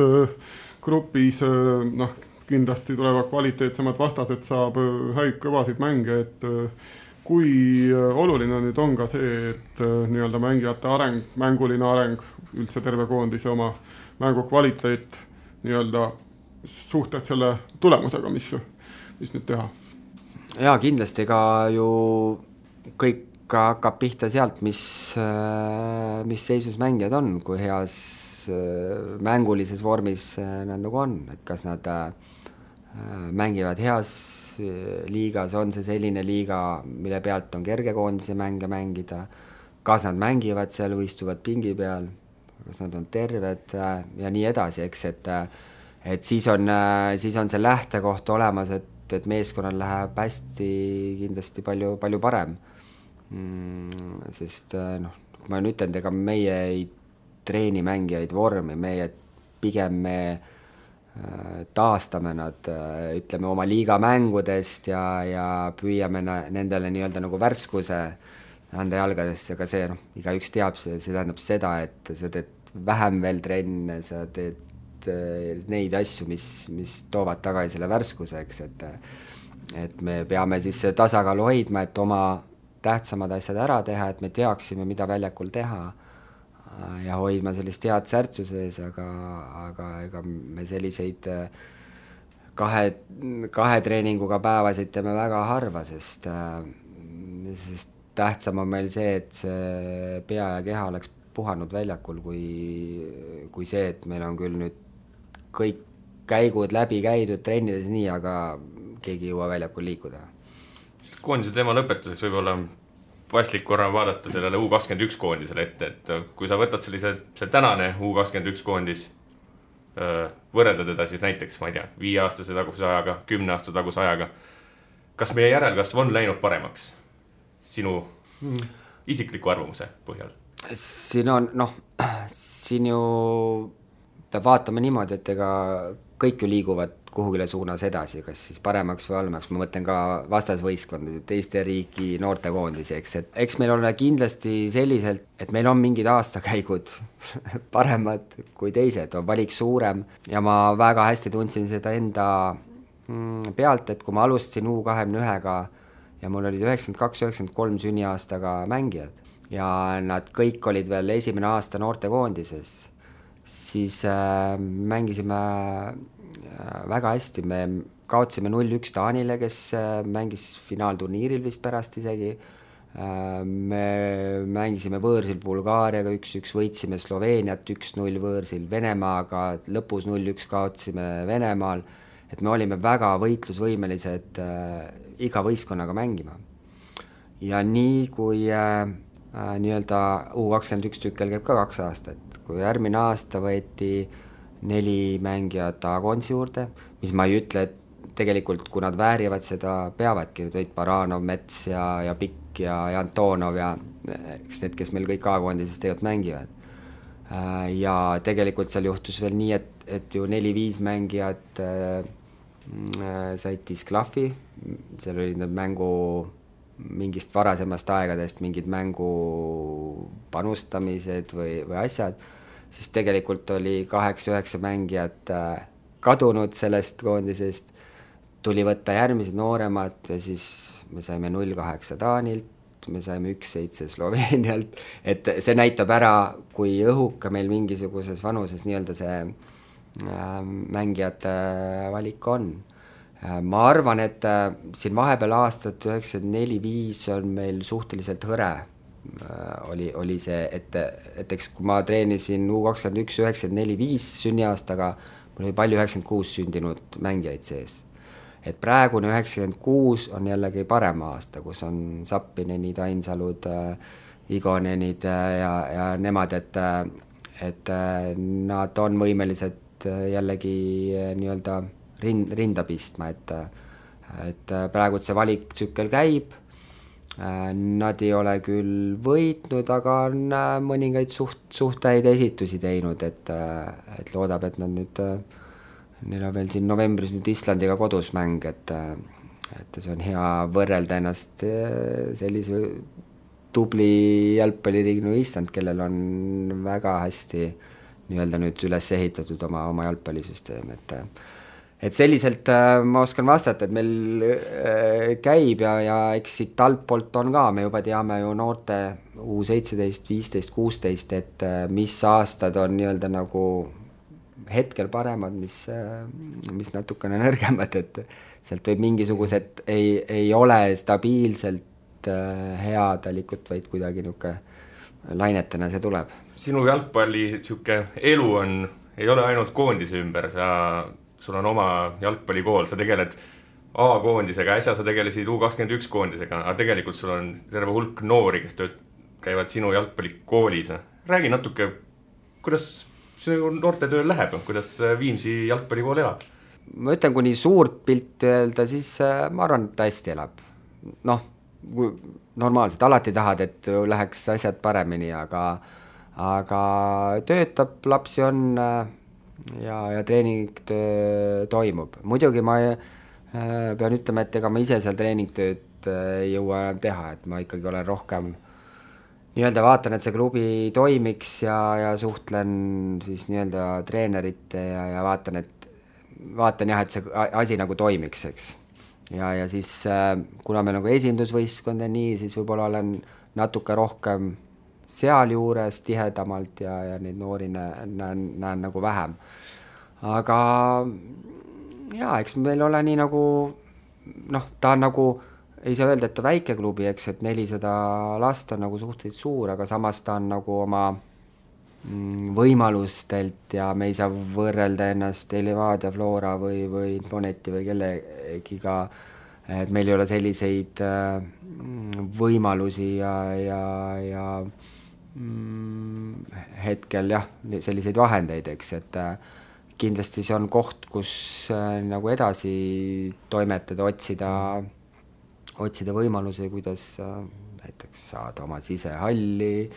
grupis kindlasti tulevad kvaliteetsemad vastased, saab häid kõvasid mänge, et kui oluline nüüd on ka see, et nii-öelda mängijate areng, mänguline areng, üldse terve koondise oma mängu kvaliteet nii-öelda suhted selle tulemusega, mis nüüd teha. Jaa, kindlasti ka ju kõik hakkab pihta sealt, mis seisus mängijad on, kui heas mängulises vormis nad nagu on, et kas nad mängivad heas liigas, on see selline liiga, mille pealt on kerge koondise mänge mängida, kas nad mängivad seal või istuvad pingi peal, kas nad on terved ja nii edasi, eks, et siis on see lähtekoht olemas, et meeskonnal läheb hästi kindlasti palju parem. Sest kui ma nüüd ütlen, ega meie ei treeni mängijaid vormi, pigem me taastame nad, ütleme, oma liiga mängudest ja püüame nendele nii-öelda nagu värskuse anda jalgadesse, aga see, igaüks teab, see tähendab seda, et sa teed vähem veel trenne, sa teed neid asju, mis toovad tagasi selle värskuseks, et me peame siis tasakaalu hoidma, et oma tähtsamad asjad ära teha, et me teaksime, mida väljakul teha ja hoidma sellist head särtsu sees, aga ega me selliseid kahe treeninguga päevasid teeme väga harva, sest tähtsam on meil see, et see pea ja keha oleks puhanud väljakul, kui see, et meil on küll nüüd kõik käigud läbi käidud trennides nii, aga keegi ei jõua väljakul liikuda. Koondise teema lõpetuseks võib-olla paslik korra vaadata sellele U21 koondisele ette, et kui sa võtad see tänane U21 koondis, võrrelda teda siis näiteks, ma ei tea, 5-aastase taguse ajaga, 10-aastase taguse ajaga, kas meie järelkasv on läinud paremaks sinu isikliku arvamuse põhjal? Siin ju peab vaatama niimoodi, et ega kõik ju liiguvad kuhugile suunas edasi, kas siis paremaks või halvemaks, ma mõtlen ka vastasvõistkondade, teiste riiki noortekoondisi, eks meil on kindlasti selliselt, et meil on mingid aastakäigud paremad kui teised, on valik suurem ja ma väga hästi tundsin seda enda pealt, et kui ma alustasin U21-ga ja mul olid 92-93 sünniaastaga mängijad ja nad kõik olid veel esimene aasta noortekoondises, siis mängisime väga hästi, me kaotasime 0-1 Taanile, kes mängis finaalturniiril vist pärast isegi, me mängisime võõrsil Bulgaariaga 1-1, võitsime Sloveeniat 1-0 võõrsil, Venemaaga lõpus 0-1 kaotasime Venemaal, et me olime väga võitlusvõimelised iga võistkonnaga mängima. Ja nii kui nii-öelda U21 tükkel käib ka 2 aastat, kui järgmine aasta võeti 4 mängijat A-koondise juurde, mis ma ei ütle, et tegelikult kui nad väärivad seda, peavadki, nüüd olid Baranov, Mets ja Pikk ja Antonov ja eks need, kes meil kõik A-koondises tegelikult mängivad. Ja tegelikult seal juhtus veel nii, et ju 4-5 mängijat said disklahvi, seal olid need mängu mingist varasemast aegadest mingid mängu panustamised või asjad, siis tegelikult oli 8-9 mängijat kadunud sellest koondisest, tuli võtta järgmised nooremad ja siis me saime 0-8 Taanilt, me saime 1-7 Sloveenialt, et see näitab ära, kui õhuka meil mingisuguses vanuses nii-öelda see mängijate valik on. Ma arvan, et siin vahepeal aastat 94-5 on meil suhteliselt hõre oli see, et eks kui ma treenisin U21 94-5 sünniaastaga, mul oli palju 96 sündinud mängijaid sees. Et praegune 96 on jällegi parem aasta, kus on Sappinenid, Ainsalud, Igonenid ja nemad, et nad on võimelised jällegi nii-öelda rinda pistma, et praegu see valiktsükkel käib, nad ei ole küll võitnud, aga on mõningaid suht häid esitusi teinud, et loodab, et nad nüüd, neil on veel siin novembris nüüd Islandiga kodus mäng, et see on hea võrrelda ennast sellise tubli jalgpalliriigi nagu Island, kellel on väga hästi nii-öelda nüüd üles ehitatud oma jalgpallisüsteem, et selliselt ma oskan vastata, et meil käib ja eks siit altpoolt on ka, me juba teame ju noorte U17, 15, 16, et mis aastad on nii-öelda nagu hetkel paremad, mis natukene nõrgemad, et sealt võib mingisugused ei ole stabiilselt headalikut, vaid kuidagi niuke lainetena see tuleb. Sinu jalgpalli elu ei ole ainult koondise ümber, sul on oma jalgpallikool, sa tegeled A-koondisega, äsja sa tegelesid U21 koondisega, aga tegelikult sul on terve hulk noori, kes käivad sinu jalgpallikoolis. Räägi natuke, kuidas sinu noorte tööl läheb, kuidas Viimsi jalgpallikool elab? Ma ütlen, kui nii suurt pilti öelda, siis ma arvan, et ta hästi elab. Noh, normaalselt, alati tahad, et läheks asjad paremini, aga töötab, lapsi on ja treening toimub. Muidugi ma pean ütlema, et ega ma ise seal treeningtööd ei jõua enam teha, et ma ikkagi olen rohkem nii-öelda vaatan, et see klubi toimiks ja suhtlen siis nii-öelda treenerite ja vaatan jah, et see asi nagu toimiks, eks. Ja siis kuna me nagu esindusvõistkond ja nii, siis võib-olla olen natuke rohkem seal juures tihedamalt ja neid noori näen nagu vähem. Aga jaa, eks meil ole nii nagu, ta on nagu, ei saa öelda, et ta väike klubi, eks, et 400 last on nagu suhteliselt suur, aga samas ta on nagu oma võimalustelt ja me ei saa võrrelda ennast Levadia, Flora või Infoneti või kellegiga, et meil ei ole selliseid võimalusi ja hetkel jah, selliseid vahendeid, eks, et kindlasti see on koht, kus nagu edasi toimetada, otsida võimalusi, kuidas näiteks saada oma sisehalli,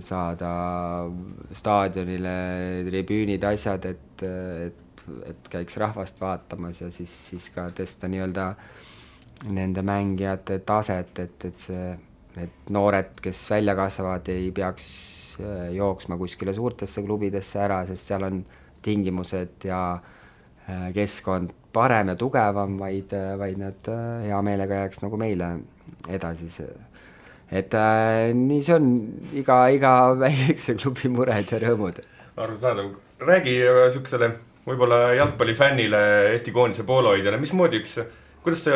saada staadionile tribüünid, asjad, et käiks rahvast vaatamas ja siis ka tõsta nii-öelda nende mängijate taset, et need noored, kes välja kasvavad, ei peaks jooksma kuskile suurtesse klubidesse ära, sest seal on tingimused ja keskkond parem ja tugevam, vaid nad hea meelega jääks nagu meile edasi. Et nii see on iga väikse klubi mured ja rõõmud. Arusaadav. Räägi sükesele võib-olla jalgpallifännile, Eesti koondise poolohoidjale, mismoodi kuidas see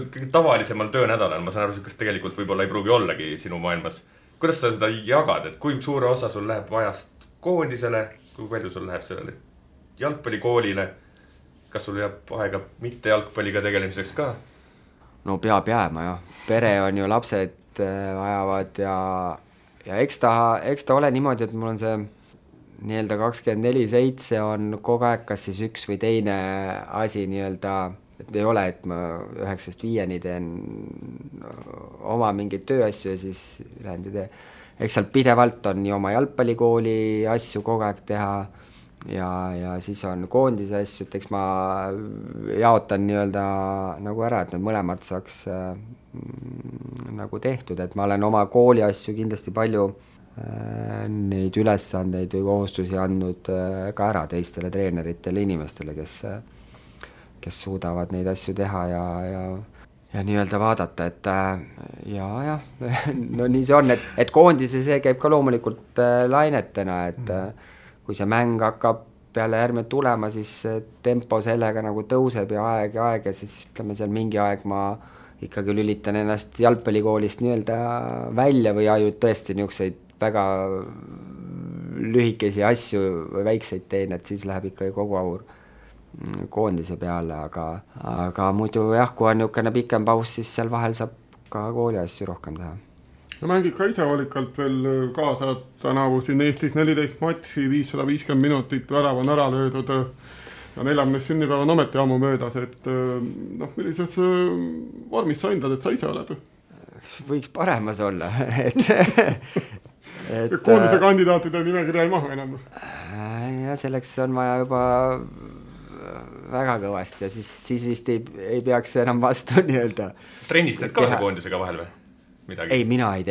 kõige tavalisemal töönädalal, ma saan aru, sükest tegelikult võib-olla ei pruugi ollagi sinu maailmas. Kuidas sa seda jagad, et kui suure osa sul läheb ajast koondisele, kui palju sul läheb sellele jalgpallikoolile, kas sul jääb aega mitte jalgpalliga tegelemiseks ka? No peab jääma, jah. Pere on ju, lapsed vajavad ja eks ta ole niimoodi, et mul on see nii-öelda 24/7 on kogu aeg kas siis üks või teine asi nii-öelda, et ei ole, et ma 9-5 teen oma mingeid tööasju ja siis lähen ja eks seal pidevalt on nii oma jalgpallikooli asju kogu aeg teha ja siis on koondise asju, et eks ma jaotan nii-öelda nagu ära, et need mõlemad saaks nagu tehtud, et ma olen oma kooli asju kindlasti palju neid ülesandeid või kohustusi andnud ka ära teistele treeneritele inimestele, kes suudavad neid asju teha nii-öelda vaadata, et jah, no nii see on, et koondise see käib ka loomulikult lainetena, et kui see mäng hakkab peale järgmine tulema, siis tempo sellega nagu tõuseb ja aeg ja siis ütleme seal mingi aeg ma ikkagi lülitan ennast jalgpallikoolist nii-öelda välja või ainult tõesti niisuguseid väga lühikesi asju või väikseid teen, et siis läheb ikkagi kogu aur koondise peale, aga muidu jah, kui on niisugune pikem paus, siis seal vahel saab ka kooli asju rohkem teha. No mängid ka ise valikalt veel kaasa, tänavu siin Eestis 14 matši, 550 minutit, värav on ära löödud ja 40 sünnipäev on ometi ammu möödas, et millises vormis sa hindad, et sa ise oled? Võiks paremas olla, et koondise kandidaatide nimekirja ei mahu enam. Ja selleks on vaja juba väga kõvasti ja siis vist ei peaks enam vastu nii-öelda. Trennistad ka koondisega vahel või? Midagi? Ei, mina ei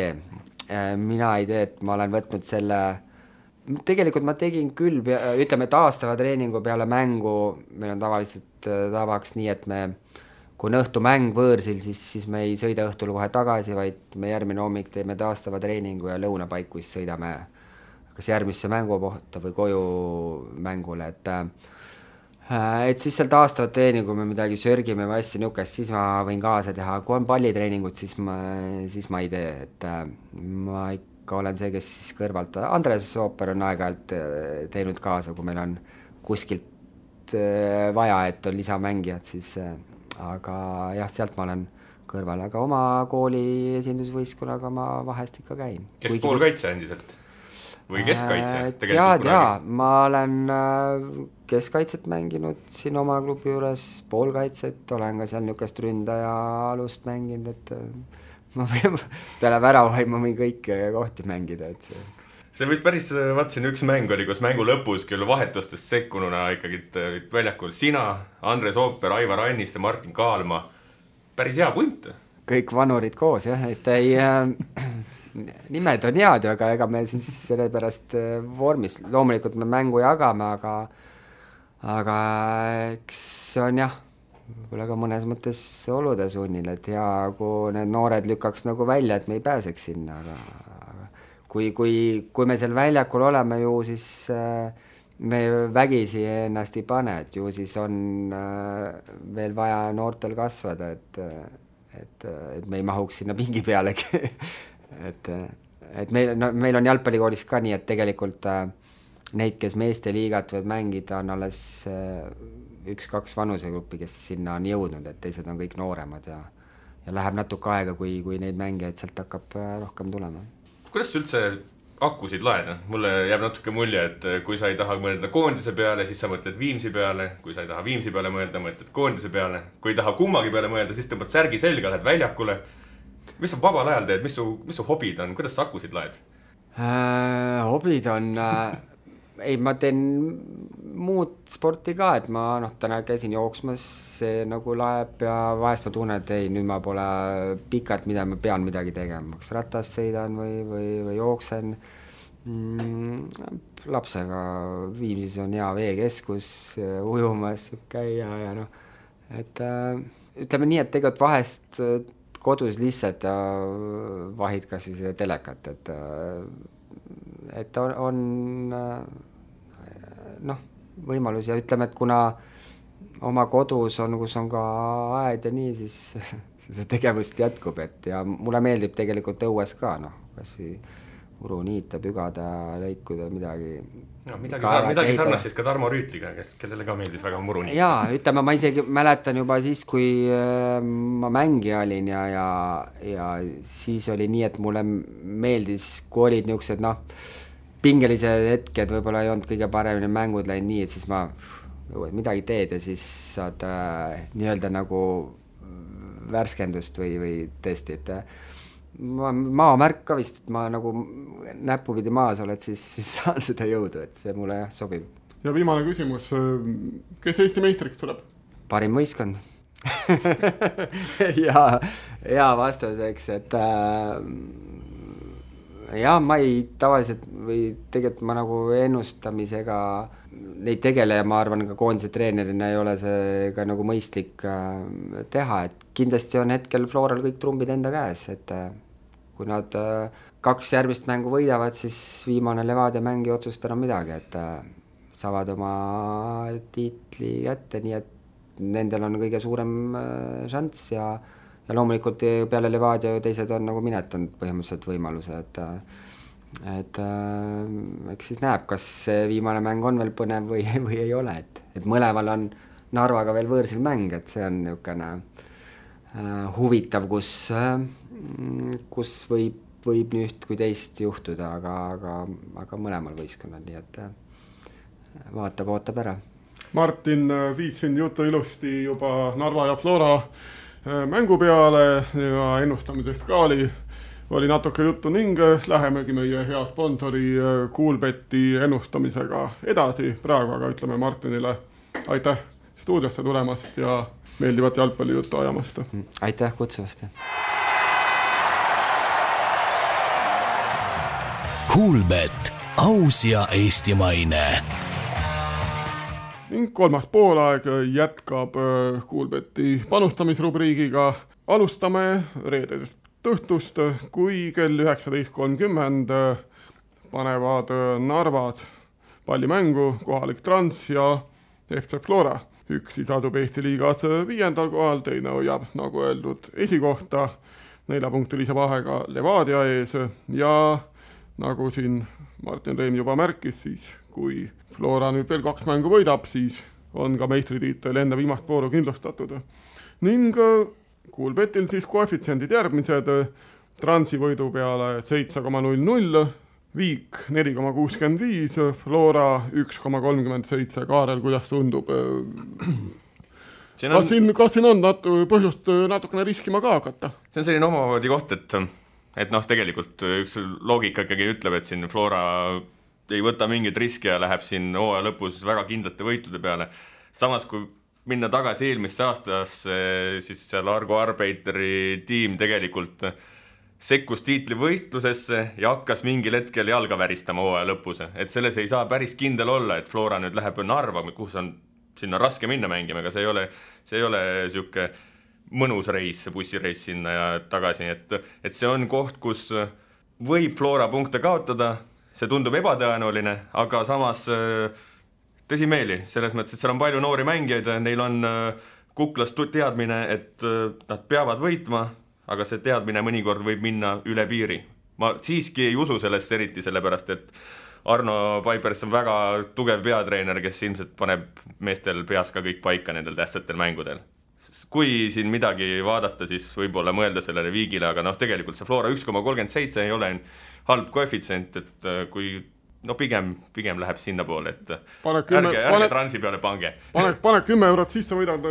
tee, et ma olen võtnud selle, tegelikult ma tegin küll, ütleme taastava treeningu peale mängu, meil on tavaliselt tavaks nii, et kui on õhtu mäng võõrsil, siis me ei sõida õhtul kohe tagasi, vaid me järgmine hommik teeme taastava treeningu ja lõunapaiku siis sõidame kas järgmisse mängupohta või koju mängule, et siis seal taastavat treeningu me midagi sörgime või asja niukest, siis ma võin kaasa teha, kui on pallitreeningut, siis ma ei tee, et ma ikka olen see, kes siis kõrvalt, Andres Ooper on aeg-ajalt teinud kaasa, kui meil on kuskilt vaja, et on lisamängijad, siis aga jah, sealt ma olen kõrval, aga oma kooli esindusvõistkonnaga ma vahest ikka käin. Kes poolkaitse endiselt? Või keskkaitse? Jaa, ma olen keskkaitset mänginud siin oma klubi juures, poolkaitset, olen ka seal niukest ründaja alust mänginud, et ma peale väravaid ma võin kõiki kohti mängida, et see võis päris, vaatasin üks mäng oli, kus mängu lõpus küll vahetustest sekkununa ikkagi väljakul sina, Andres Ooper, Aivar Annist ja Martin Kaalma, päris hea punt. Kõik vanurid koos, jah, et ei nimed on head, aga ega me siis selle pärast vormis, loomulikult me mängu jagame, aga eks see on jah, võib-olla ka mõnes mõttes olude sunnil, et hea, kui need noored lükkaks nagu välja, et me ei pääseks sinna, aga kui me seal väljakul oleme ju, siis me vägisi ennast ei pane, et ju siis on veel vaja noortel kasvada, et me ei mahuks sinna pingi pealegi. et meil on jalgpallikoolis ka nii, et tegelikult neid, kes meeste liigat võivad mängida, on alles 1-2 vanusegruppi, kes sinna on jõudnud, et teised on kõik nooremad ja läheb natuke aega, kui neid mängijaid sealt hakkab rohkem tulema. Kuidas sa üldse akkusid laed? Mulle jääb natuke mulje, et kui sa ei taha mõelda koondise peale, siis sa mõtled Viimsi peale, kui sa ei taha Viimsi peale mõelda, mõtled koondise peale, kui ei taha kummagi peale mõelda, siis tõmbad särgi selga, lähed väljakule. Mis sa vabal ajal teed, mis su hobid on, kuidas sa akkusid laed? Hobid on, ma teen muud sporti ka, et ma täna käisin jooksmas, see nagu laeb ja vahest ma tunnen, et ei, nüüd ma pole pikalt, mida ma pean midagi tegema, kas ratast sõidan või jooksen. Lapsega Viimsis on hea veekeskus, ujumas käia ja et ütleme nii, et tegelikult vahest kodus lihtsalt vahid kas või seda telekat, et on võimalus ja ütleme, et kuna oma kodus on, kus on ka aed ja nii, siis seda tegevust jätkub, et ja mulle meeldib tegelikult õues ka, kas või uru niita, pügada, lõikuda, midagi. No, midagi sarnast siis ka Tarmo Rüütliga, kellele ka meeldis väga muru niita. Jaa, ütleme, ma isegi mäletan juba siis, kui ma mängija olin ja siis oli nii, et mulle meeldis, kui olid niisugused pingelised hetked, võib-olla ei olnud kõige paremini mängud läinud nii, et siis ma midagi teed ja siis saad nii-öelda nagu värskendust või tõesti, et maamärk ka vist, et ma nagu näpupidi maas oled, siis saan seda jõudu, et see mulle sobib. Ja viimane küsimus, kes Eesti meistriks tuleb? Parim võistkond. ja vastuseks, Jah, ma ei tavaliselt või tegelikult ma nagu ennustamisega neid tegele ja ma arvan ka koondise treenerina ei ole see ka nagu mõistlik teha, et kindlasti on hetkel Floral kõik trumbid enda käes, et kui nad 2 järgmist mängu võidavad, siis viimane Levadia mäng ei otsusta enam midagi, et saavad oma tiitli kätte, nii et nendel on kõige suurem šanss ja loomulikult peale Levadia teised on nagu minetanud põhimõtteliselt võimaluse, et eks siis näeb, kas see viimane mäng on veel põnev või ei ole, et mõlemal on Narvaga veel võõrsil mäng, et see on niisugune huvitav, kus võib nii üht kui teist juhtuda, aga mõlemal võistkonnal, nii et ootab ära. Martin viis siin jutu ilusti juba Narva ja Flora mängu peale ja ennustamisest ka oli natuke juttu ning lähemegi meie hea sponsori Coolbeti ennustamisega edasi. Praegu aga ütleme Martinile aitäh stuudiosse tulemast ja meeldivat jalgpallijuttu ajamast. Aitäh kutsuvast. Coolbet, aus ja eestimaine. Ning kolmas poolaeg jätkab Coolbeti panustamisrubriigiga. Alustame reedesest õhtust, kui kell 19.30 panevad Narvas pallimängu kohalik Trans ja FC Flora. Üks siis asub Eesti liigas 5. kohal, teine hoiab, nagu öeldud, esikohta 4-punktilise vahega Levadia ees ja nagu siin Martin Reim juba märkis, siis kui Flora nüüd veel 2 mängu võidab, siis on ka meistritiitel enne viimast vooru kindlustatud. Ning Coolbetil siis koefitsiendid järgmised, Transi võidu peale 7,00, Viik 4,65, Flora 1,37. Kaarel, kuidas tundub? Kas siin on põhjust natukene riskima ka hakata? See on selline omamoodi koht, et tegelikult üks loogika ikkagi ütleb, et siin Flora ei võta mingit riski ja läheb siin hooaja lõpus väga kindlate võitude peale. Samas, kui minna tagasi eelmisse aastasse, siis seal Argo Arbeiteri tiim tegelikult sekkus tiitlivõitlusesse ja hakkas mingil hetkel jalga väristama hooaja lõpus. Et selles ei saa päris kindel olla, et Flora nüüd läheb Narva, kus on sinna raske minna mängima, aga see ei ole siuke mõnus reis, bussireis sinna ja tagasi. Et see on koht, kus võib Flora punkte kaotada, see tundub ebatõenäoline, aga samas tõsimeeli, selles mõttes, et seal on palju noori mängijaid, neil on kuklast teadmine, et nad peavad võitma, aga see teadmine mõnikord võib minna üle piiri. Ma siiski ei usu sellest eriti, sellepärast, et Arno Paipers on väga tugev peatreener, kes ilmselt paneb meestel peas ka kõik paika nendel tähtsatel mängudel. Kui siin midagi vaadata, siis võib-olla mõelda sellele Viigile, aga tegelikult see Flora 1,37 ei ole halb koefitsient, et kui pigem läheb sinna poole, et ärge Transi peale pange. Pane 10 eurot sisse, võidad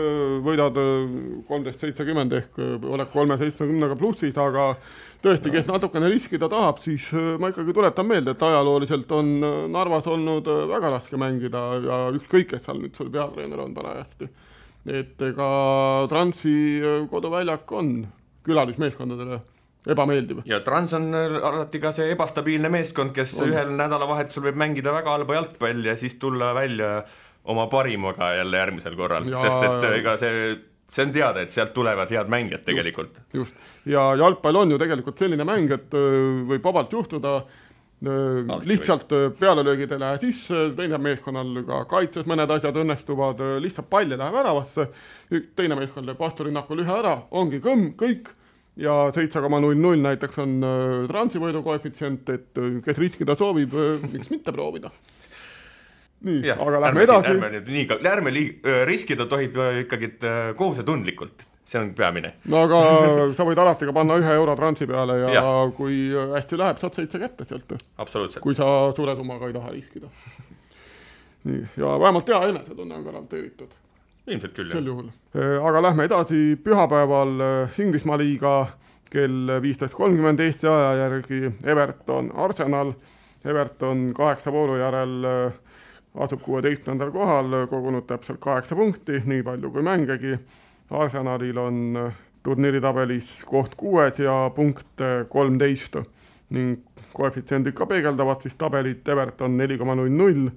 13,70 ehk oled 3,70 plussis, aga tõesti, kes natukene riskida tahab, siis ma ikkagi tuletan meelde, et ajalooliselt on Narvas olnud väga raske mängida ja ükskõik, kes seal nüüd sul peatreener on parajasti. Et ega Transi koduväljak on külalismeeskondadele ebameeldiv. Ja Trans on alati ka see ebastabiilne meeskond, kes ühel nädalavahetusel võib mängida väga halba jalgpalli ja siis tulla välja oma parimaga jälle järgmisel korral. Sest et ega see on teada, et sealt tulevad head mängijad tegelikult. Just. Ja jalgpall on ju tegelikult selline mäng, et võib vabalt juhtuda lihtsalt pealelöögid ei lähe sisse, teine meeskonnal ka kaitses mõned asjad õnnestuvad, lihtsalt palli läheb äravasse, teine meeskond läheb vastulinnakul ühe ära, ongi kõik ja 7,00 näiteks on Transi võidu koefitsient, et kes riskida soovib, miks mitte proovida. Nii, ja, aga lähme edasi. Ärme riskida tohib ikkagi kohusetundlikult. See on peamine. No aga sa võid alati ka panna 1 euro Transi peale ja kui hästi läheb, saad 7 kätte sealt. Absoluutselt. Kui sa suure summaga ei taha riskida. Nii, ja vähemalt hea enesetunne on garanteeritud. Ilmselt küll, sel juhul. Aga lähme edasi pühapäeval Inglismaa liiga kell 15.30 Eesti aja järgi Everton Arsenal. Everton 8 vooru järel asub 16. kohal, kogunud täpselt 8 punkti, nii palju kui mängegi. Arsenalil on turniiritabelis koht 6 ja punkt 13 ning koefitsiendid ka peegeldavad siis tabelit, Everton 4,00,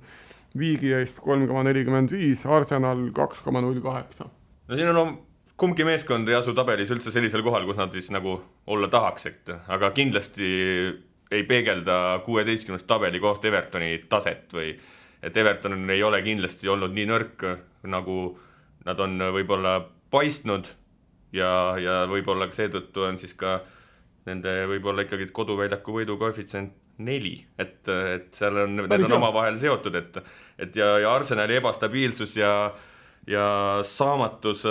Viigi eest 3,45, Arsenal 2,08. No siin on kumbki meeskond ei asu tabelis üldse sellisel kohal, kus nad siis nagu olla tahaks, aga kindlasti ei peegelda 16. tabeli koht Evertoni taset või et Everton ei ole kindlasti olnud nii nõrk, nagu nad on võib-olla paistnud ja võib-olla seetõttu on siis ka nende võib-olla ikkagi koduväljaku võidu koefitsient 4, et seal on, need on omavahel seotud, et ja Arsenali ebastabiilsus ja saamatus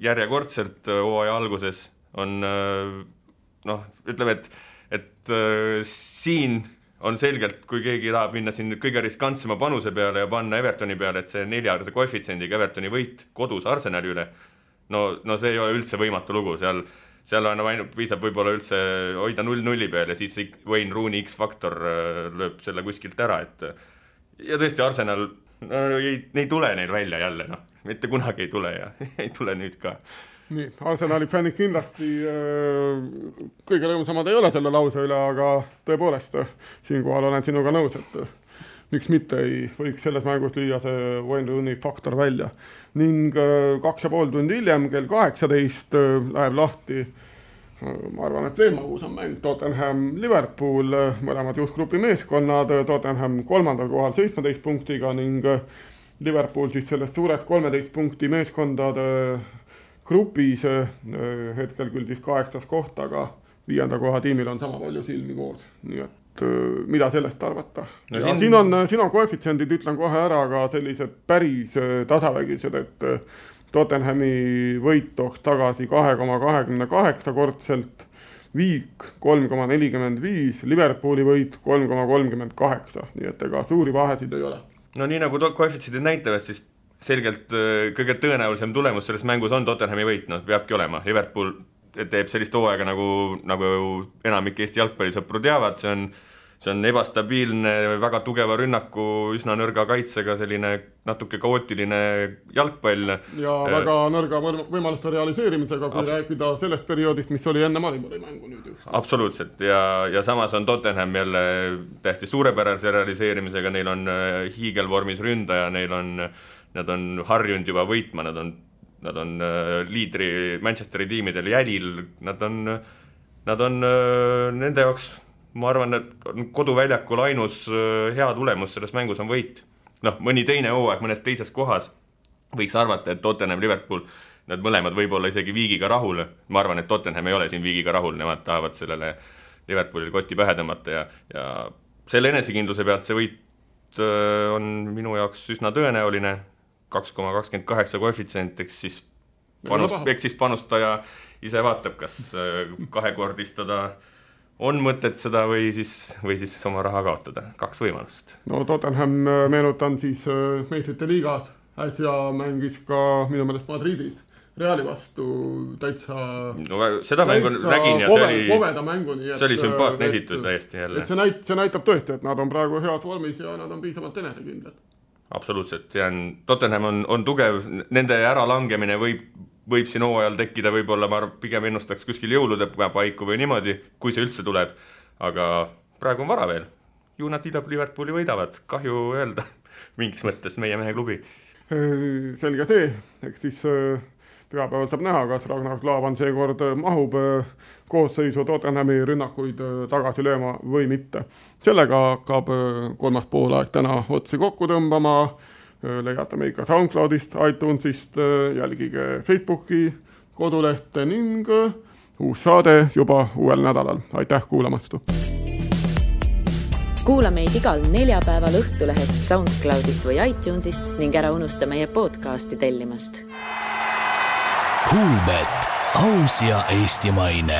järjekordselt hooaja alguses on ütleme, et siin on selgelt, kui keegi tahab minna siin kõige riskantsema panuse peale ja panna Evertoni peale, et see 4 koefitsiendiga Evertoni võit kodus Arsenali üle, no see ei ole üldse võimatu lugu, seal on ainult piisab võib-olla üldse hoida 0-0 peal ja siis Wayne Rooney X-faktor lööb selle kuskilt ära, ja tõesti Arsenal ei tule neil välja jälle, mitte kunagi ei tule ja ei tule nüüd ka. Nii, Arsenali fännid kindlasti kõige rõõmsamad ei ole selle lause üle, aga tõepoolest siinkohal olen sinuga nõus, et miks mitte ei võiks selles mängus lüüa see Wayne Rooney faktor välja. Ning 2,5 tundi hiljem, kell 18 läheb lahti, ma arvan, et veel magus on mäng Tottenham Liverpool, mõlemad juhtgrupi meeskonnad, Tottenham 3. kohal 17 punktiga ning Liverpool siis sellest suurest 13 punkti meeskondade grupis hetkel küll siis 8. koht, aga 5. koha tiimil on sama palju silmi koos. Nii et mida sellest arvata? No siin on koefitsiendid, ütlen kohe ära, aga sellised päris tasavägised, et Tottenhami võit tooks tagasi 2,28 kordselt, Viik 3,45, Liverpooli võit 3,38, nii et ega suuri vahesid ei ole. No nii nagu koefitsiendid näitavad, siis selgelt kõige tõenäolisem tulemus selles mängus on Tottenhami võit, peabki olema. Liverpool teeb sellist hooaega, nagu enamik Eesti jalgpallisõpru teavad, see on ebastabiilne, väga tugeva rünnaku, üsna nõrga kaitsega, selline natuke kaootiline jalgpall. Ja väga nõrga võimaluste realiseerimisega, kui rääkida sellest perioodist, mis oli enne Maribori mängu nüüd just. Absoluutselt, ja samas on Tottenham jälle tähti suurepärase realiseerimisega, neil on hiigelvormis ründaja, nad on harjunud juba võitma, nad on liidri Manchesteri tiimidel jälil, nad on nende jaoks, ma arvan, et koduväljakul ainus hea tulemus selles mängus on võit. Mõni teine hooaeg mõnes teises kohas võiks arvata, et Tottenham, Liverpool, nad mõlemad võib-olla isegi Viigiga rahul. Ma arvan, et Tottenham ei ole siin Viigiga rahul, nemad tahavad sellele Liverpoolile kotti pähe tõmmata ja selle enesekindluse pealt see võit on minu jaoks üsna tõenäoline. 2,28 koefitsient, eks siis panustaja ise vaatab, kas kahekordistada on mõtet seda või siis oma raha kaotada. 2 võimalust. No Tottenham meenutan siis meistrite liigas, äsja mängis ka minu meelest Madridis Reali vastu täitsa seda mängu nägin ja see oli sümpaatne esitus täiesti jälle. See näitab tõesti, et nad on praegu head vormis ja nad on piisavalt enesekindlad. Absoluutselt, Tottenham on tugev, nende äralangemine võib siin hooajal tekkida, võib-olla ma pigem ennustaks kuskil jõulude paiku või niimoodi, kui see üldse tuleb, aga praegu on vara veel. Ju nad Liverpooli võidavad, kahju öelda mingis mõttes meie mehe klubi. Selge see, eks siis pühapäeval saab näha, kas Ragnar Klavan seekord mahub koosseisu Tottenhami rünnakuid tagasi lööma või mitte. Sellega hakkab 3. poolaeg täna otsi kokku tõmbama. Leiate meid ka SoundCloudist, iTunesist, jälgige Facebooki kodulehte ning uus saade juba uuel nädalal. Aitäh kuulamast! Kuula meid igal neljapäeval Õhtulehest, SoundCloudist või iTunesist ning ära unusta meie podcasti tellimast. Kuulbet, aus ja eestimaine.